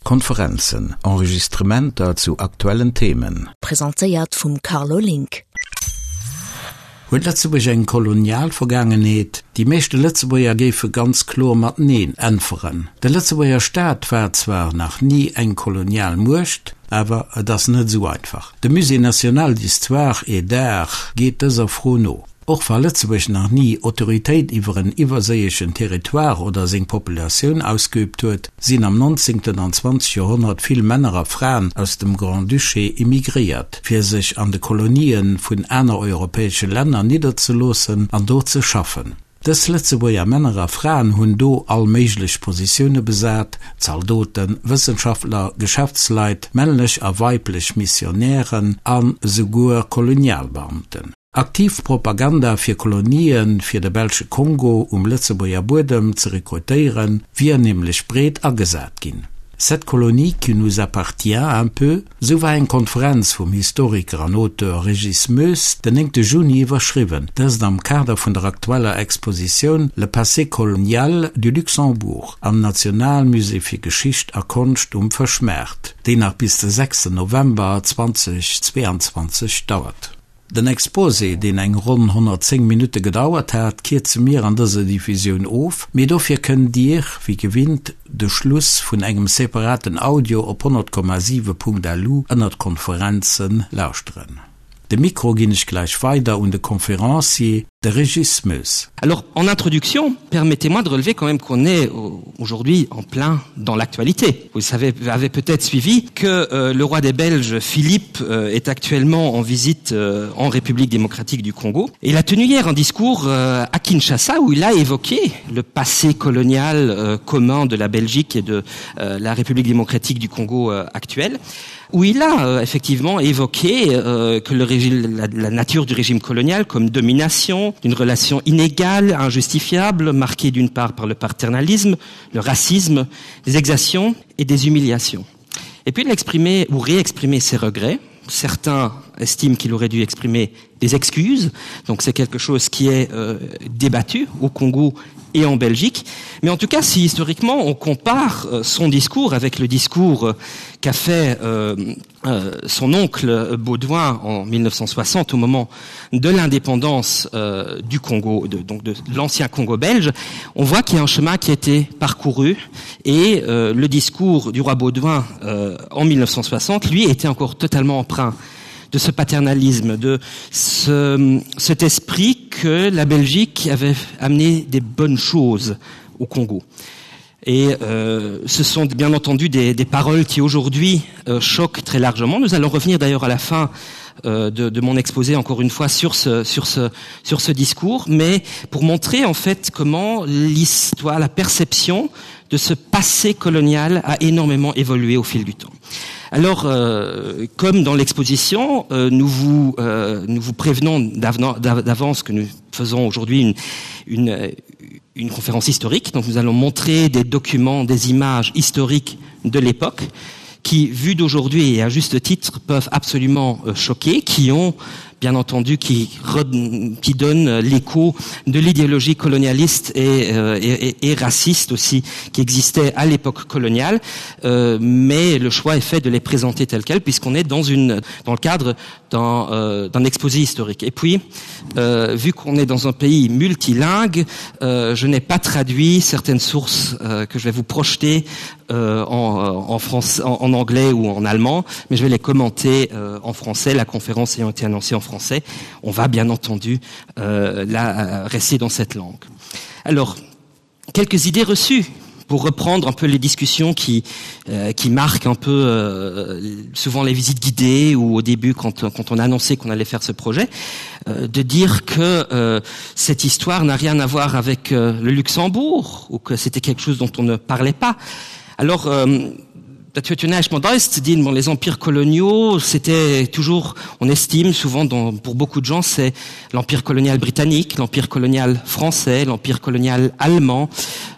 Konferenzen, Enregistrementer zu aktuellen Themen. Presentéiert vum Carlo Link. Huet Lëtzebuerg eng kolonial Vergaangenheet? Déi meeschte Lëtzebuerger géife ganz kloer mat Neen äntweren. De Lëtzebuerger Staat war zwar nach ni eng kolonial Muecht, awer et ass net esou einfach. De Musée national d'histoire et d'art geet dëser Fro no. Och wa Lëtzebuerg nach ni Autoritéit iwwer en iwwerséieschen Territoire oder seng Populatioun ausgeübt huet, sinn am 19. an 20. Joerhonnert vill Männer a Fraen aus dem Grand-Duché immigréiert, fir sech an de Kolonië vun aner europäesche Länner nidderzeloossen an do ze schaffen. Dës Lëtzebuerger Männer a Fraen hunn do all méiglech Positioune besat, Zaldoten, Wëssenschaftler, Geschäftsleit, männlech a weiblech Missionären a souguer Kolonialbeamten. Aktiv Propaganda fir Kolonien fir de belsche Kongo um Lëtzebuerger Buedem ze rekrutéieren, wier nämlech breet agesat ginn. Cette colonie qui nous appartient un peu, sou war eng Konferenz vum Historiker an Auteur Régis Moes den 9 Juni iwwerschriwwen, dëst am Kader vun der aktueller Expositioun Le passé colonial du Luxembourg am Nationalmusée fir Geschicht a Konscht um Fëschmaart, déi nach bis de 6 November 2022 dauert. Den Exposé, deen eng ronn 110 Minutte gedauert hat, kierze mir an dëser Diffusioun of, mee dofir kënnt Dir, wéi gewinnt, de Schluss vun engem separaten Audio op 100,7.lu ënnert Konferenzen lauschteren. De Mikro ginn ech gläich weider un de Conférencier, de Régis Moes. Alors, en introduction, permettez-moi de relever quand même qu'on est aujourd'hui en plein dans l'actualité. Vous savez, avez peut-être suivi que euh, le roi des Belges Philippe euh, est actuellement en visite euh, en République démocratique du Congo. Et il a tenu hier un discours euh, à Kinshasa où il a évoqué le passé colonial euh, commun de la Belgique et de euh, la République démocratique du Congo euh, actuelle où il a euh, effectivement évoqué euh, que le régime, la, la nature du régime colonial comme domination, une relation inégale, injustifiable, marquée d'une part par le paternalisme, le racisme, des exactions et des humiliations. Et puis il a exprimé ou réexprimé ses regrets. Certains estiment qu'il aurait dû exprimer des excuses, donc c'est quelque chose qui est euh, débattu au Congo et en Belgique. Mais en tout cas, si historiquement on compare euh, son discours avec le discours euh, qu'a fait euh, euh, son oncle Baudouin en 1960 au moment de l'indépendance euh, du Congo, de, donc de l'ancien Congo belge, on voit qu'il y a un chemin qui a été parcouru et euh, le discours du roi Baudouin euh, en 1960, lui, était encore totalement empreint de ce paternalisme, de ce, cet esprit que la Belgique avait amené des bonnes choses au Congo. Et euh, ce sont bien entendu des, des paroles qui aujourd'hui euh, choquent très largement. Nous allons revenir d'ailleurs à la fin euh, de, de mon exposé encore une fois sur ce, sur, ce, sur ce discours, mais pour montrer en fait comment l'histoire, la perception de ce passé colonial a énormément évolué au fil du temps. Alors, euh, comme dans l'exposition, euh, nous, vous, euh, nous vous prévenons d'avance que nous faisons aujourd'hui une, une, une conférence historique. Donc nous allons montrer des documents, des images historiques de l'époque qui, vues d'aujourd'hui et à juste titre, peuvent absolument euh, choquer, qui ont bien entendu qui, qui donne l'écho de l'idéologie colonialiste et, euh, et, et, et raciste aussi qui existait à l'époque coloniale euh, mais le choix est fait de les présenter tels quels puisqu'on est dans une dans le cadre d'un euh, exposé historique et puis euh, vu qu'on est dans un pays multilingue euh, je n'ai pas traduit certaines sources euh, que je vais vous projeter euh, en, euh, en France en, en anglais ou en allemand mais je vais les commenter euh, en français la conférence ayant été annoncée en français on va bien entendu euh, la euh, rester dans cette langue alors quelques idées reçues pour reprendre un peu les discussions qui euh, qui marquent un peu euh, souvent les visites guidées ou au début quand quand on a annoncé qu'on allait faire ce projet euh, de dire que euh, cette histoire n'a rien à voir avec euh, le luxembourg ou que c'était quelque chose dont on ne parlait pas alors euh, les empires coloniaux c'était toujours on estime souvent dans, pour beaucoup de gens c'est l'empire colonial britannique l'empire colonial français l'empire colonial allemand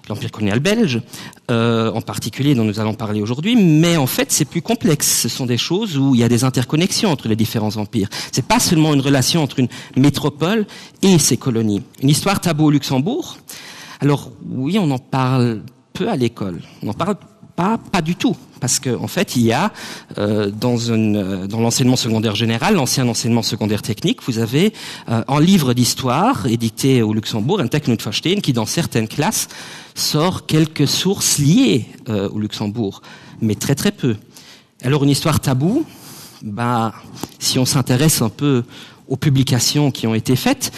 l'empire colonial belge euh, en particulier dont nous allons parler aujourd'hui mais en fait c'est plus complexe ce sont des choses où il y a des interconnexions entre les différents empires c'est pas seulement une relation entre une métropole et ses colonies une histoire tabou au luxembourg alors oui on en parle peu à l'école on en parle pas. Pas, pas du tout parce que en fait il y a euh, dans une euh, dans l'enseignement secondaire général l'ancien enseignement secondaire technique vous avez euh, en livre d'histoire édité au luxembourg un technoverstehen qui dans certaines classes sort quelques sources liées euh, au luxembourg mais très très peu alors une histoire tabou bah si on s'intéresse un peu aux publications qui ont été faites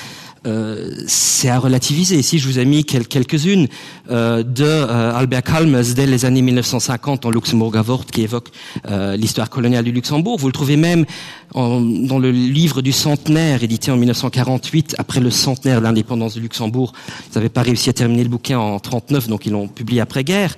euh, c'est à relativiser. Ici, je vous ai mis quel quelques-unes euh, de euh, Albert Kalmes dès les années 1950 en Luxembourg Avort qui évoque euh, l'histoire coloniale du Luxembourg. Vous le trouvez même en, dans le livre du centenaire édité en 1948 après le centenaire de l'indépendance du Luxembourg. Ils n'avaient pas réussi à terminer le bouquin en 39, donc ils l'ont publié après-guerre.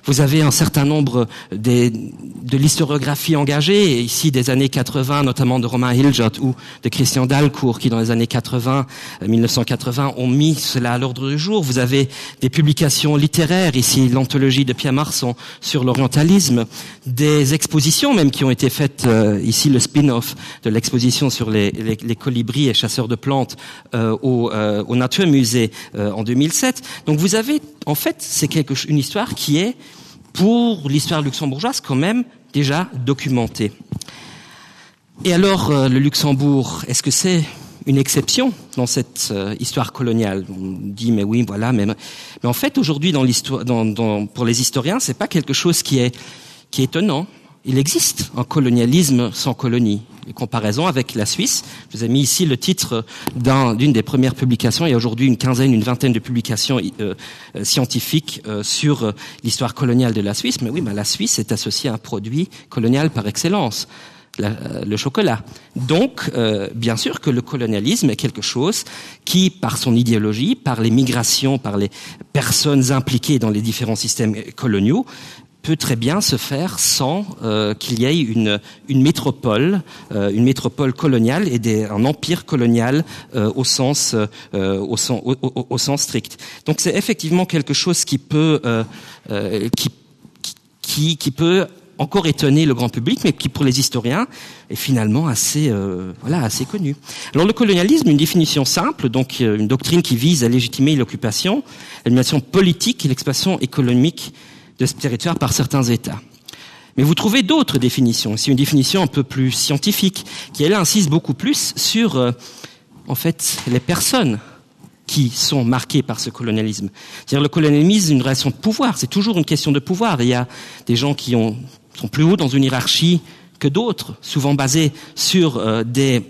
Vous avez un certain nombre des, de l'historiographie engagée, ici des années 80, notamment de Romain Hiljot ou de Christian Dalcourt, qui dans les années 80, 1980 euh, ont mis cela à l'ordre du jour. Vous avez des publications littéraires, ici l'anthologie de Pierre Marson sur l'orientalisme, des expositions même qui ont été faites, euh, ici le spin-off de l'exposition sur les, les, les colibris et chasseurs de plantes euh, au, euh, au Nature Musée euh, en 2007. Donc vous avez, en fait, c'est quelque une histoire qui est, pour l'histoire luxembourgeoise quand même déjà documentée. Et alors euh, le Luxembourg, est-ce que c'est une exception dans cette euh, histoire coloniale On dit mais oui voilà mais, mais en fait aujourd'hui dans l'histoire dans, dans, pour les historiens c'est pas quelque chose qui est qui est étonnant. Il existe un colonialisme sans colonie. Les comparaisons avec la Suisse, je vous ai mis ici le titre d'une un, des premières publications. Il y a aujourd'hui une quinzaine, une vingtaine de publications euh, euh, scientifiques euh, sur euh, l'histoire coloniale de la Suisse. Mais oui, ben, la Suisse est associée à un produit colonial par excellence. La, euh, le chocolat. Donc, euh, bien sûr que le colonialisme est quelque chose qui, par son idéologie, par les migrations, par les personnes impliquées dans les différents systèmes coloniaux, peut très bien se faire sans euh, qu'il y ait une, une métropole, euh, une métropole coloniale et des, un empire colonial euh, au, sens, euh, au, sens, au, au, au sens strict. Donc c'est effectivement quelque chose qui peut, euh, euh, qui, qui, qui peut encore étonner le grand public, mais qui pour les historiens est finalement assez, euh, voilà, assez connu. Alors le colonialisme, une définition simple, donc euh, une doctrine qui vise à légitimer l'occupation, l'animation politique et l'expansion économique de ce territoire par certains États. Mais vous trouvez d'autres définitions, c'est une définition un peu plus scientifique, qui elle insiste beaucoup plus sur euh, en fait les personnes qui sont marquées par ce colonialisme. C'est-à-dire le colonialisme, une relation de pouvoir, c'est toujours une question de pouvoir. Il y a des gens qui ont, sont plus hauts dans une hiérarchie que d'autres, souvent basée sur euh, des,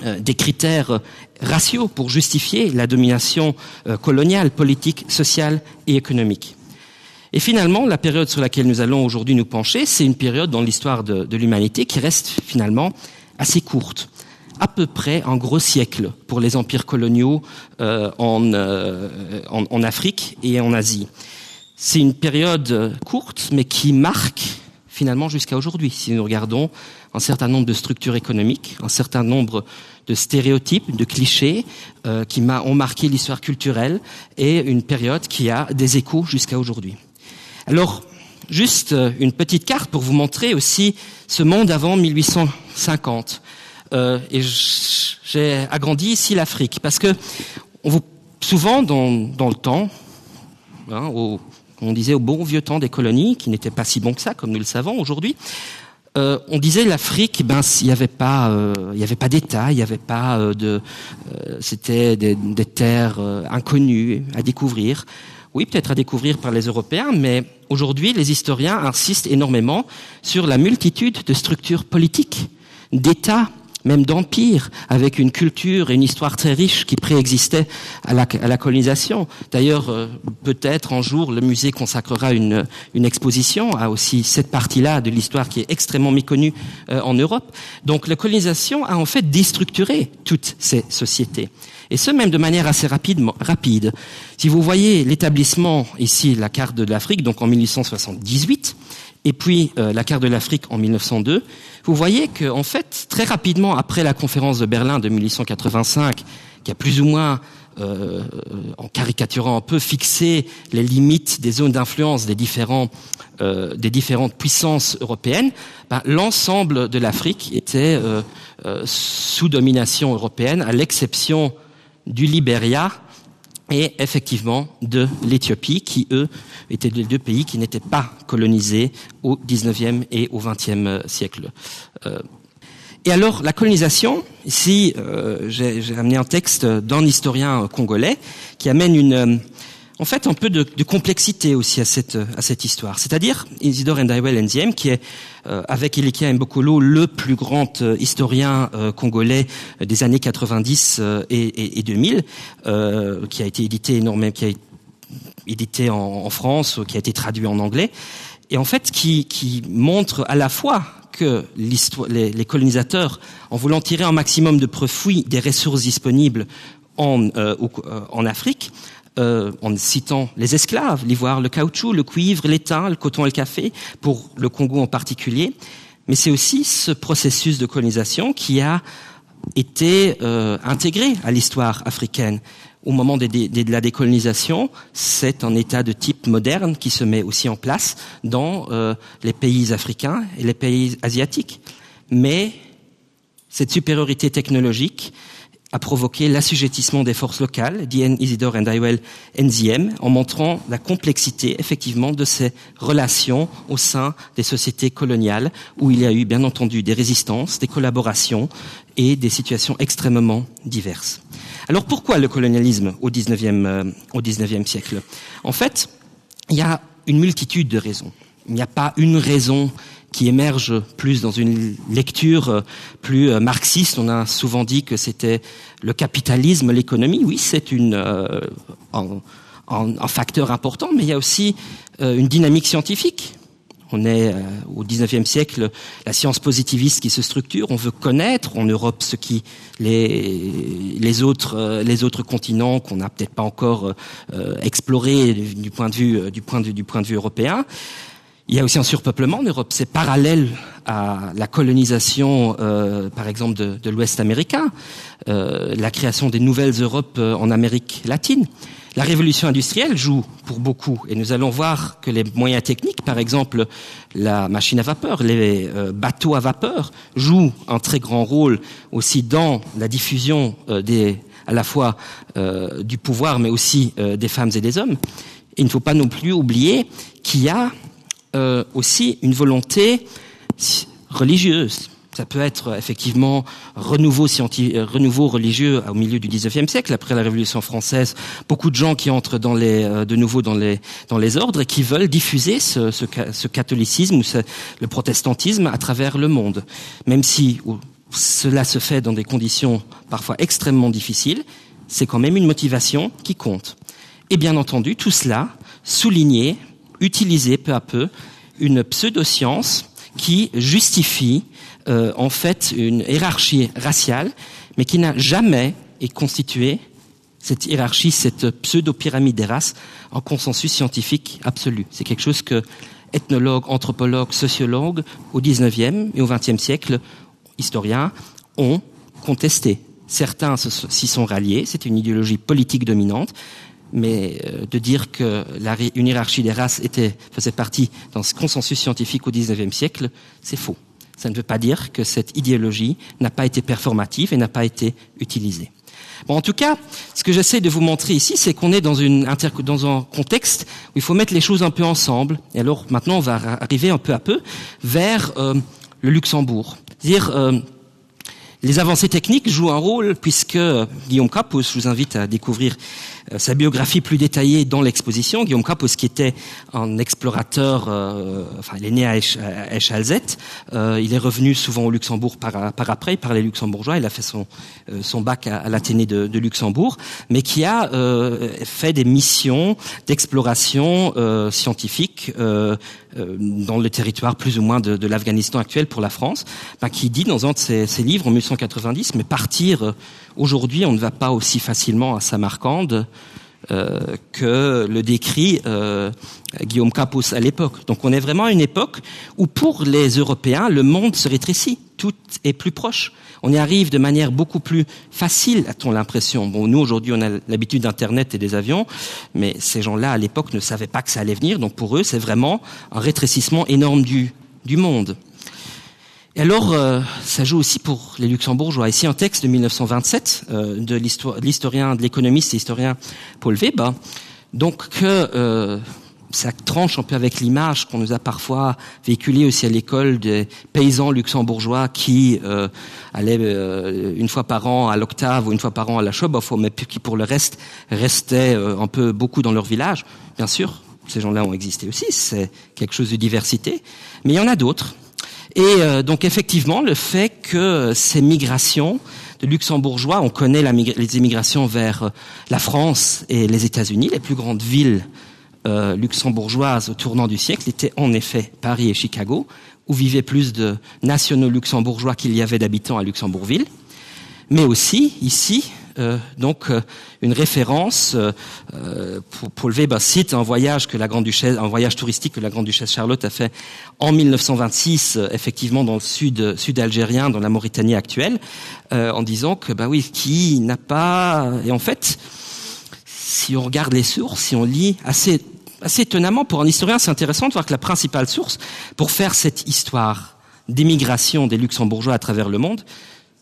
euh, des critères raciaux pour justifier la domination euh, coloniale, politique, sociale et économique. Et finalement, la période sur laquelle nous allons aujourd'hui nous pencher, c'est une période dans l'histoire de, de l'humanité qui reste finalement assez courte à peu près un gros siècle pour les empires coloniaux euh, en, euh, en, en Afrique et en Asie. C'est une période courte, mais qui marque finalement jusqu'à aujourd'hui. Si nous regardons un certain nombre de structures économiques, un certain nombre de stéréotypes, de clichés euh, qui ont marqué l'histoire culturelle et une période qui a des échos jusqu'à aujourd'hui. Alors, juste euh, une petite carte pour vous montrer aussi ce monde avant 1850. Euh, et j'ai agrandi ici l'Afrique parce que on vous, souvent dans, dans le temps, hein, au, on disait au bon vieux temps des colonies, qui n'était pas si bon que ça, comme nous le savons aujourd'hui, euh, on disait l'Afrique, ben il n'y avait pas, euh, il y avait pas d'État, il n'y avait pas euh, de, euh, c'était des, des terres euh, inconnues à découvrir. Oui, peut-être à découvrir par les Européens, mais aujourd'hui, les historiens insistent énormément sur la multitude de structures politiques, d'États, même d'empires, avec une culture et une histoire très riche qui préexistait à la, à la colonisation. D'ailleurs, euh, peut-être un jour, le musée consacrera une, une exposition à aussi cette partie-là de l'histoire qui est extrêmement méconnue euh, en Europe. Donc la colonisation a en fait déstructuré toutes ces sociétés et ce même de manière assez rapide, rapide. Si vous voyez l'établissement ici, la carte de l'Afrique, donc en 1878, et puis euh, la carte de l'Afrique en 1902, vous voyez que en fait, très rapidement après la conférence de Berlin de 1885, qui a plus ou moins euh, en caricaturant un peu fixé les limites des zones d'influence des différents euh, des différentes puissances européennes, ben, l'ensemble de l'Afrique était euh, euh, sous domination européenne, à l'exception du Liberia. et effectivement de l'Éthiopie qui eux étaient les deux pays qui n'étaient pas colonisés au 19e et au 20e euh, siècle. Euh, et alors la colonisation ici euh, j'ai amené un texte d'un historien congolais qui amène une euh, en fait un peu de, de complexité aussi à cette, à cette histoire. C'est-à-dire Isidore Ndaiwel Nziem qui est euh, avec Ilikia Mbokolo le plus grand euh, historien euh, congolais euh, des années 90 euh, et, et, et 2000 euh, qui a été édité énormément qui a été édité en, en France, qui a été traduit en anglais et en fait qui, qui montre à la fois que les, les colonisateurs en voulant tirer un maximum de profit des ressources disponibles en, euh, au, euh, en Afrique, euh, en citant les esclaves, l'ivoire, le caoutchouc, le cuivre, l'étain, le coton et le café, pour le Congo en particulier. Mais c'est aussi ce processus de colonisation qui a été euh, intégré à l'histoire africaine. Au moment de, de, de la décolonisation, c'est un état de type moderne qui se met aussi en place dans euh, les pays africains et les pays asiatiques. Mais cette supériorité technologique, a provoqué l'assujettissement des forces locales, DN Isidore and Iwell NZM, en montrant la complexité effectivement de ces relations au sein des sociétés coloniales, où il y a eu bien entendu des résistances, des collaborations et des situations extrêmement diverses. Alors pourquoi le colonialisme au 19e, euh, au 19e siècle En fait, il y a une multitude de raisons. Il n'y a pas une raison qui émerge plus dans une lecture euh, plus euh, marxiste. On a souvent dit que c'était le capitalisme, l'économie. Oui, c'est une euh, un, un, un facteur important, mais il y a aussi euh, une dynamique scientifique. On est euh, au 19e siècle, la science positiviste qui se structure, on veut connaître en Europe ce qui les, les, autres, euh, les autres continents qu'on n'a peut-être pas encore euh, exploré du point de vue, euh, du point de vue, du point de vue européen. Il y a aussi un surpeuplement en Europe, c'est parallèle à la colonisation euh, par exemple de, de l'Ouest américain, euh, la création des nouvelles Europes euh, en Amérique latine. La révolution industrielle joue pour beaucoup et nous allons voir que les moyens techniques, par exemple la machine à vapeur, les euh, bateaux à vapeur jouent un très grand rôle aussi dans la diffusion euh, des, à la fois euh, du pouvoir mais aussi euh, des femmes et des hommes. Et il ne faut pas non plus oublier qu'il y a euh, aussi une volonté religieuse. Ça peut être effectivement renouveau, euh, renouveau religieux au milieu du 19e siècle, après la Révolution française, beaucoup de gens qui entrent dans les, euh, de nouveau dans les, dans les ordres et qui veulent diffuser ce, ce, ce catholicisme ou ce, le protestantisme à travers le monde. Même si cela se fait dans des conditions parfois extrêmement difficiles, c'est quand même une motivation qui compte. Et bien entendu, tout cela souligné utiliser peu à peu une pseudoscience qui justifie euh, en fait une hiérarchie raciale, mais qui n'a jamais été constituée cette hiérarchie, cette pseudo-pyramide des races en consensus scientifique absolu. C'est quelque chose que ethnologues, anthropologues, sociologues au 19e et au 20e siècle, historiens, ont contesté. Certains s'y sont ralliés, c'est une idéologie politique dominante, mais euh, de dire que la, une hiérarchie des races était, faisait partie dans ce consensus scientifique au 19e siècle, c'est faux. Ça ne veut pas dire que cette idéologie n'a pas été performative et n'a pas été utilisée. Bon, en tout cas, ce que j'essaie de vous montrer ici, c'est qu'on est dans, une inter dans un contexte où il faut mettre les choses un peu ensemble. Et alors maintenant, on va arriver un peu à peu vers euh, le Luxembourg. C'est-à-dire, euh, Les avancées techniques jouent un rôle puisque Guillaume Capus je vous invite à découvrir euh, sa biographie plus détaillée dans l'exposition. Guillaume Capus qui était un explorateur euh, enfin il est né à Echalzet, euh, il est revenu souvent au Luxembourg par, par après par les luxembourgeois, il a fait son, euh, son bac à, à l'Athénée de, de Luxembourg, mais qui a euh, fait des missions d'exploration euh, scientifique euh, euh, dans le territoire plus ou moins de, de l'Afghanistan actuel pour la France, ben, qui dit dans un de ses, ses livres en 1890 mais partir euh, aujourd'hui on ne va pas aussi facilement à Samarcande euh, que le décrit euh, Guillaume Capus à l'époque. Donc on est vraiment à une époque où pour les Européens le monde se rétrécit, tout est plus proche. On y arrive de manière beaucoup plus facile, a-t-on l'impression. Bon, nous aujourd'hui on a l'habitude d'internet et des avions, mais ces gens-là à l'époque ne savaient pas que ça allait venir, donc pour eux c'est vraiment un rétrécissement énorme du, du monde. Et alors euh, ça joue aussi pour les luxembourgeois ici un texte de 1927 euh, de l'historien de l'économiste et historien Paul Weber donc que euh, ça tranche un peu avec l'image qu'on nous a parfois véhiculée aussi à l'école des paysans luxembourgeois qui euh, allaient euh, une fois par an à l'octave ou une fois par an à la Schoboff mais qui pour le reste restaient euh, un peu beaucoup dans leur village bien sûr ces gens là ont existé aussi c'est quelque chose de diversité mais il y en a d'autres et euh, donc effectivement le fait que ces migrations de luxembourgeois on connaît la les émigrations vers euh, la France et les états unis les plus grandes villes euh, luxembourgeoises au tournant du siècle étaient en effet Paris et Chicago, où vivaient plus de nationaux luxembourgeois qu'il y avait d'habitants à Luxembourgville, mais aussi ici euh, donc euh, une référence euh, euh pour, pour lever ben, cite un voyage que la grande duchesse un voyage touristique que la grande duchesse Charlotte a fait en 1926 euh, effectivement dans le sud sud algérien dans la Mauritanie actuelle euh, en disant que ben oui qui n'a pas et en fait si on regarde les sources si on lit assez assez étonnamment pour un historien c'est intéressant de voir que la principale source pour faire cette histoire d'émigration des luxembourgeois à travers le monde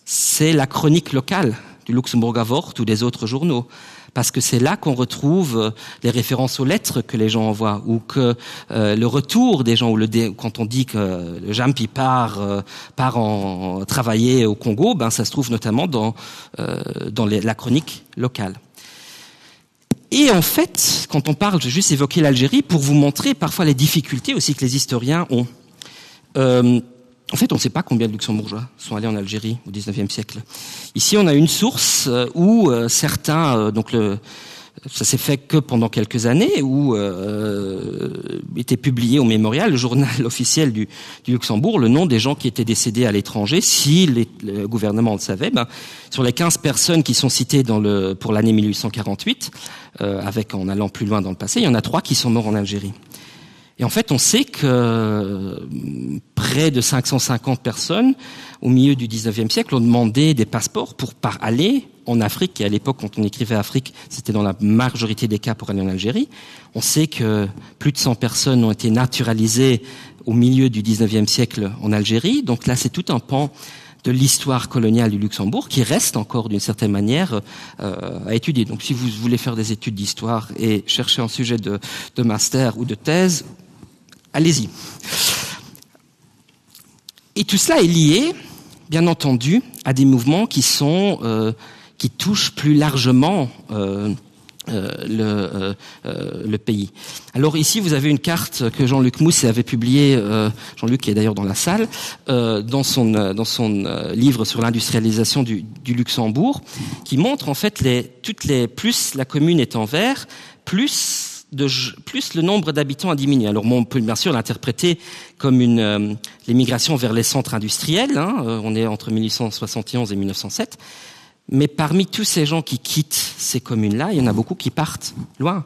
c'est la chronique locale du luxembourg avort ou des autres journaux parce que c'est là qu'on retrouve euh, les références aux lettres que les gens envoient ou que euh, le retour des gens ou le dé, quand on dit que le jampi part euh, part en travailler au congo ben ça se trouve notamment dans euh, dans les, la chronique locale Et en fait, quand on parle, j'ai juste évoqué l'Algérie pour vous montrer parfois les difficultés aussi que les historiens ont. Euh, en fait, on ne sait pas combien de luxembourgeois sont allés en Algérie au XIXe siècle. Ici, on a une source euh, où euh, certains euh, donc le, ça s'est fait que pendant quelques années où euh, était publié au mémorial le journal officiel du, du Luxembourg le nom des gens qui étaient décédés à l'étranger si les, le gouvernement le savait ben, sur les 15 personnes qui sont citées dans le pour l'année 1848 euh, avec en allant plus loin dans le passé il y en a trois qui sont morts en Algérie et en fait on sait que euh, près de 550 personnes au milieu du 19e siècle ont demandé des passeports pour par aller en Afrique et à l'époque quand on écrivait Afrique c'était dans la majorité des cas pour aller en Algérie on sait que plus de 100 personnes ont été naturalisées au milieu du 19e siècle en Algérie donc là c'est tout un pan de l'histoire coloniale du Luxembourg qui reste encore d'une certaine manière euh, à étudier donc si vous voulez faire des études d'histoire et chercher un sujet de, de master ou de thèse allez-y et tout cela est lié bien entendu à des mouvements qui sont euh, qui touche plus largement euh, euh, le, euh, euh, le pays. Alors ici vous avez une carte que Jean-Luc Mousse avait publiée euh, Jean-Luc qui est d'ailleurs dans la salle euh, dans son, euh, dans son euh, livre sur l'industrialisation du, du Luxembourg qui montre en fait les, toutes les plus la commune est en vert plus de, plus le nombre d'habitants a diminué. Alors bon, on peut bien sûr l'interpréter comme une euh, l'émigration vers les centres industriels hein, euh, on est entre 1871 et 1907 Mais parmi tous ces gens qui quittent ces communes-là, il y en a beaucoup qui partent loin,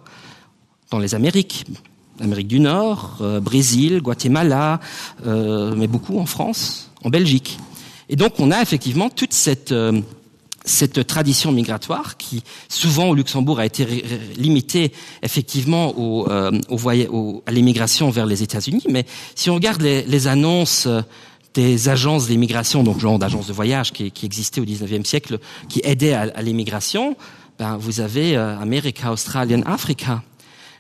dans les Amériques, Amérique du Nord, euh, Brésil, Guatemala, euh, mais beaucoup en France, en Belgique. Et donc on a effectivement toute cette, euh, cette tradition migratoire qui souvent au Luxembourg a été limitée effectivement au, euh, au, au, à l'immigration vers les États-Unis. Mais si on regarde les, les annonces euh, des agences d'immigration, donc genre d'agences de voyage qui, qui existaient au XIXe siècle, qui aidaient à, à l'immigration, ben, vous avez euh, America, Australian, Africa.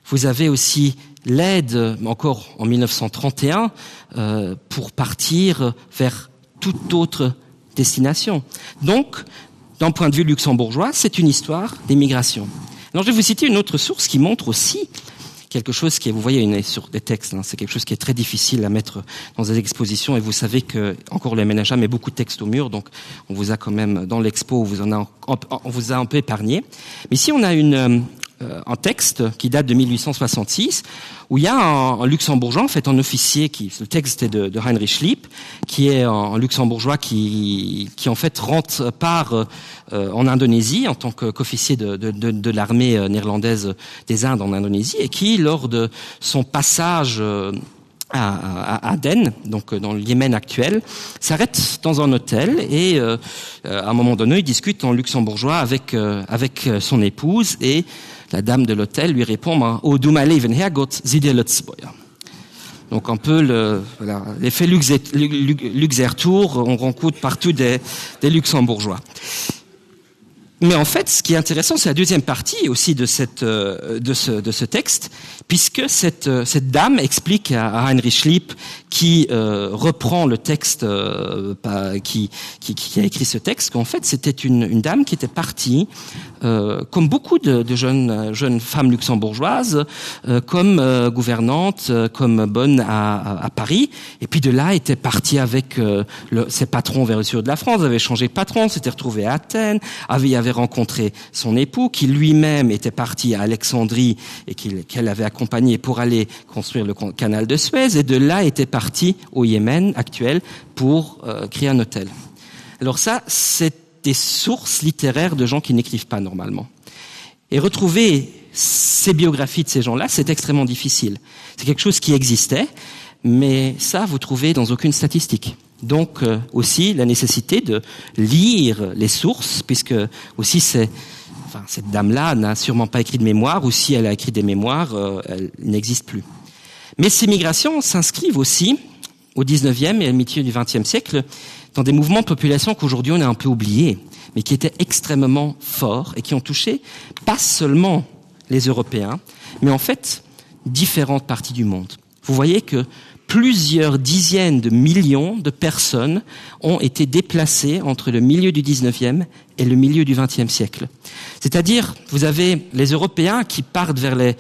Vous avez aussi l'aide, encore en 1931, euh, pour partir vers toute autre destination. Donc, d'un point de vue luxembourgeois, c'est une histoire d'immigration. Alors je vais vous citer une autre source qui montre aussi quelque chose qui est vous voyez une sur des textes c'est quelque chose qui est très difficile à mettre dans des expositions et vous savez que encore le MNHA met beaucoup de textes au mur donc on vous a quand même dans l'expo vous en a on vous a un peu épargné mais si on a une euh, Euh, un texte qui date de 1866 où il y a un, un luxembourgeois en fait un officier qui le texte est de, de Heinrich Schlipp qui est un, un luxembourgeois qui, qui en fait rentre par euh, en Indonésie en tant qu'officier de, de, de, de l'armée euh, néerlandaise des Indes en Indonésie et qui lors de son passage euh, à, à Aden, donc euh, dans le Yémen actuel, s'arrête dans un hôtel et euh, euh, à un moment donné, il discute en luxembourgeois avec, euh, avec son épouse et la dame de l'hôtel lui répond oh, du mein Leben Herrgott, sieh dir Lützbäuer. Donc un peu le, voilà, l'effet Luxertour, on rencontre partout des, des luxembourgeois. Mais en fait, ce qui est intéressant, c'est la deuxième partie aussi de, cette, euh, de, ce, de ce texte, puisque cette, euh, cette dame explique à, à Heinrich Schlipp, qui euh, reprend le texte, euh, pas, qui, qui, qui a écrit ce texte, qu'en fait, c'était une, une dame qui était partie, euh, comme beaucoup de, de jeunes, jeunes femmes luxembourgeoises, euh, comme euh, gouvernante, euh, comme bonne à, à, à Paris, et puis de là était partie avec euh, le, ses patrons vers le sud de la France, avait changé de patron, s'était retrouvée à Athènes, avait, avait rencontré son époux qui lui-même était parti à Alexandrie et qu'elle qu avait accompagné pour aller construire le canal de Suez et de là était parti au Yémen actuel pour euh, créer un hôtel. Alors ça, c'est des sources littéraires de gens qui n'écrivent pas normalement. Et retrouver ces biographies de ces gens-là, c'est extrêmement difficile. C'est quelque chose qui existait, mais ça, vous trouvez dans aucune statistique. Donc euh, aussi la nécessité de lire les sources, puisque aussi c'est enfin, cette dame-là n'a sûrement pas écrit de mémoire, ou si elle a écrit des mémoires, euh, elle n'existe plus. Mais ces migrations s'inscrivent aussi au 19e et au milieu du 20e siècle dans des mouvements de population qu'aujourd'hui on a un peu oubliés, mais qui étaient extrêmement forts et qui ont touché pas seulement les Européens, mais en fait différentes parties du monde. Vous voyez que plusieurs dizaines de millions de personnes ont été déplacées entre le milieu du 19e et le milieu du 20e siècle. C'est-à-dire, vous avez les Européens qui partent vers les,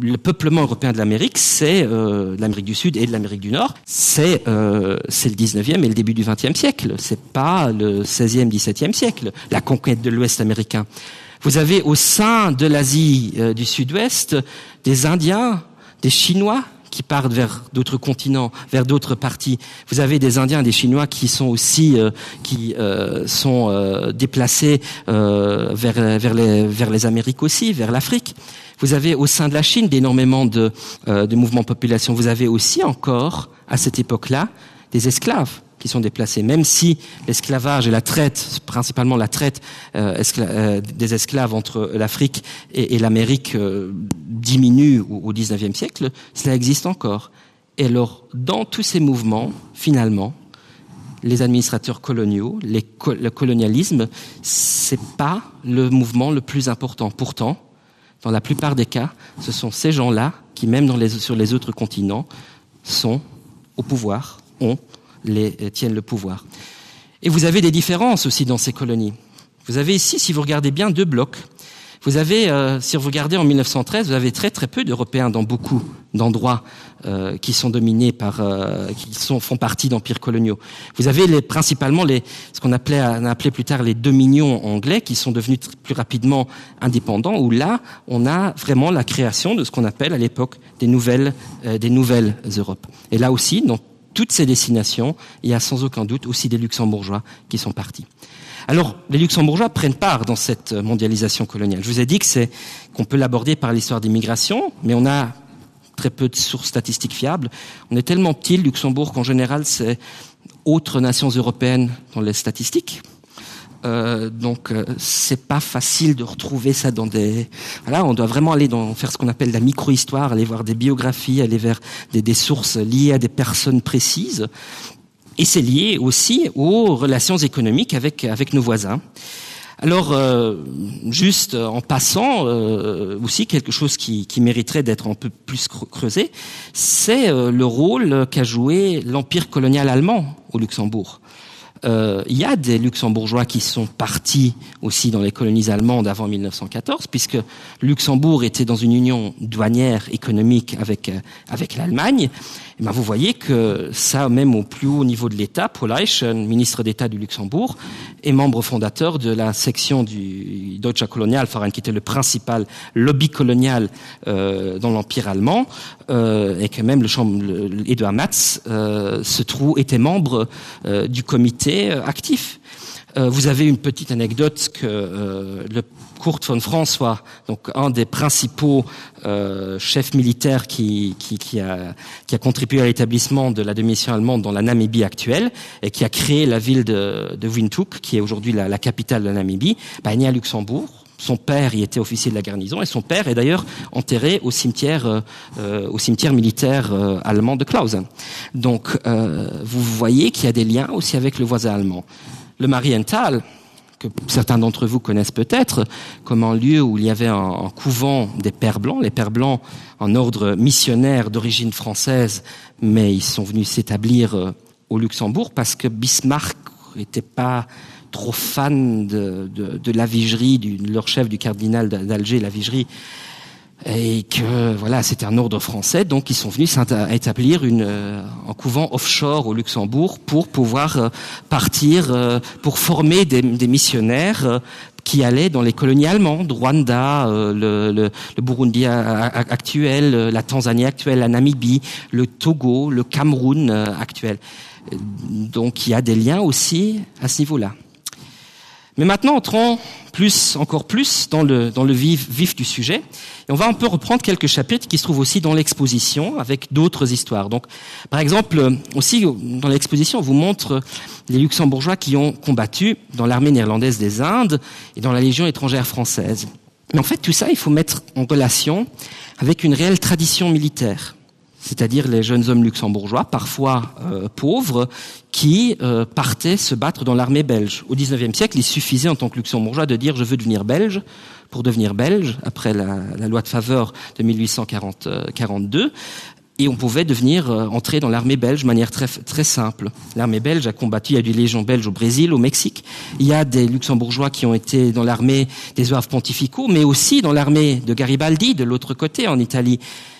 le peuplement européen de l'Amérique, c'est euh, l'Amérique du Sud et de l'Amérique du Nord, c'est euh, le 19e et le début du 20e siècle, c'est pas le 16e, 17e siècle, la conquête de l'Ouest américain. Vous avez au sein de l'Asie euh, du Sud-Ouest des Indiens, des Chinois qui partent vers d'autres continents, vers d'autres parties. Vous avez des Indiens, des Chinois qui sont aussi euh, qui euh, sont euh, déplacés euh, vers, vers, les, vers les Amériques aussi, vers l'Afrique. Vous avez au sein de la Chine d'énormément de, euh, de mouvements de population. Vous avez aussi encore, à cette époque-là, des esclaves qui sont déplacés, même si l'esclavage et la traite, principalement la traite euh, escla euh, des esclaves entre l'Afrique et, et l'Amérique euh, diminue au, au 19e siècle, cela existe encore. Et alors, dans tous ces mouvements, finalement, les administrateurs coloniaux, les co le colonialisme, c'est pas le mouvement le plus important. Pourtant, dans la plupart des cas, ce sont ces gens-là qui, même dans les, sur les autres continents, sont au pouvoir, ont les, euh, tiennent le pouvoir. Et vous avez des différences aussi dans ces colonies. Vous avez ici, si vous regardez bien, deux blocs. Vous avez, euh, si vous regardez en 1913, vous avez très très peu d'Européens dans beaucoup d'endroits euh, qui sont dominés par, euh, qui sont, font partie d'empires coloniaux. Vous avez les, principalement les, ce qu'on appelait, on a appelé plus tard les dominions anglais qui sont devenus plus rapidement indépendants, où là, on a vraiment la création de ce qu'on appelle à l'époque des nouvelles, euh, des nouvelles Europes. Et là aussi, dans toutes ces destinations, il y a sans aucun doute aussi des Luxembourgeois qui sont partis. Alors, les Luxembourgeois prennent part dans cette mondialisation coloniale. Je vous ai dit que c'est qu'on peut l'aborder par l'histoire des migrations, mais on a très peu de sources statistiques fiables. On est tellement petit, le Luxembourg, qu'en général, c'est autres nations européennes dans les statistiques. Euh, donc euh, c'est pas facile de retrouver ça dans des voilà on doit vraiment aller dans faire ce qu'on appelle la microhistoire aller voir des biographies aller vers des, des sources liées à des personnes précises et c'est lié aussi aux relations économiques avec avec nos voisins alors euh, juste en passant euh, aussi quelque chose qui, qui mériterait d'être un peu plus creusé c'est euh, le rôle qu'a joué l'empire colonial allemand au luxembourg euh, il y a des luxembourgeois qui sont partis aussi dans les colonies allemandes avant 1914 puisque luxembourg était dans une union douanière économique avec euh, avec l'allemagne et ben vous voyez que ça même au plus haut niveau de l'état paul Eichen, ministre d'état du luxembourg et membre fondateur de la section du deutsche colonialverein qui était le principal lobby colonial euh, dans l'empire allemand euh, et que même le chambre edouard matz euh, se trouve était membre euh, du comité euh, actif. Euh, vous avez une petite anecdote que euh, le Kurt von François, donc un des principaux euh, chefs militaires qui, qui, qui, a, qui a contribué à l'établissement de la démission allemande dans la Namibie actuelle et qui a créé la ville de, de Windhoek, qui est aujourd'hui la, la capitale de la Namibie, bah, est né à Luxembourg. Son père y était officier de la garnison et son père est d'ailleurs enterré au cimetière, euh, euh, au cimetière militaire euh, allemand de Clausen. Donc euh, vous voyez qu'il y a des liens aussi avec le voisin allemand. Le Marienthal, que certains d'entre vous connaissent peut-être comme un lieu où il y avait un, un couvent des pères blancs, les pères blancs en ordre missionnaire d'origine française, mais ils sont venus s'établir euh, au Luxembourg parce que Bismarck n'était pas trop fan de, de, de la vigerie du, de leur chef du cardinal d'Alger la vigerie et que voilà c'était un ordre français donc ils sont venus établir une euh, un couvent offshore au Luxembourg pour pouvoir euh, partir euh, pour former des, des missionnaires qui allaient dans les colonies allemandes Rwanda le, le, le Burundi actuel la Tanzanie actuelle la Namibie le Togo le Cameroun actuel donc il y a des liens aussi à ce niveau là Mais maintenant entrons plus encore plus dans le, dans le vif, vif du sujet et on va un peu reprendre quelques chapitres qui se trouvent aussi dans l'exposition avec d'autres histoires. Donc par exemple aussi dans l'exposition on vous montre les luxembourgeois qui ont combattu dans l'armée néerlandaise des Indes et dans la légion étrangère française. Mais en fait tout ça il faut mettre en relation avec une réelle tradition militaire c'est-à-dire les jeunes hommes luxembourgeois, parfois euh, pauvres, qui euh, partaient se battre dans l'armée belge. Au XIXe siècle, il suffisait en tant que luxembourgeois de dire je veux devenir belge pour devenir belge après la, la loi de faveur de 1842 euh, et on pouvait devenir euh, entrer dans l'armée belge de manière très, très simple. L'armée belge a combattu, il y a des légions belges au Brésil, au Mexique. Il y a des luxembourgeois qui ont été dans l'armée des oeuvres pontificaux, mais aussi dans l'armée de Garibaldi de l'autre côté en Italie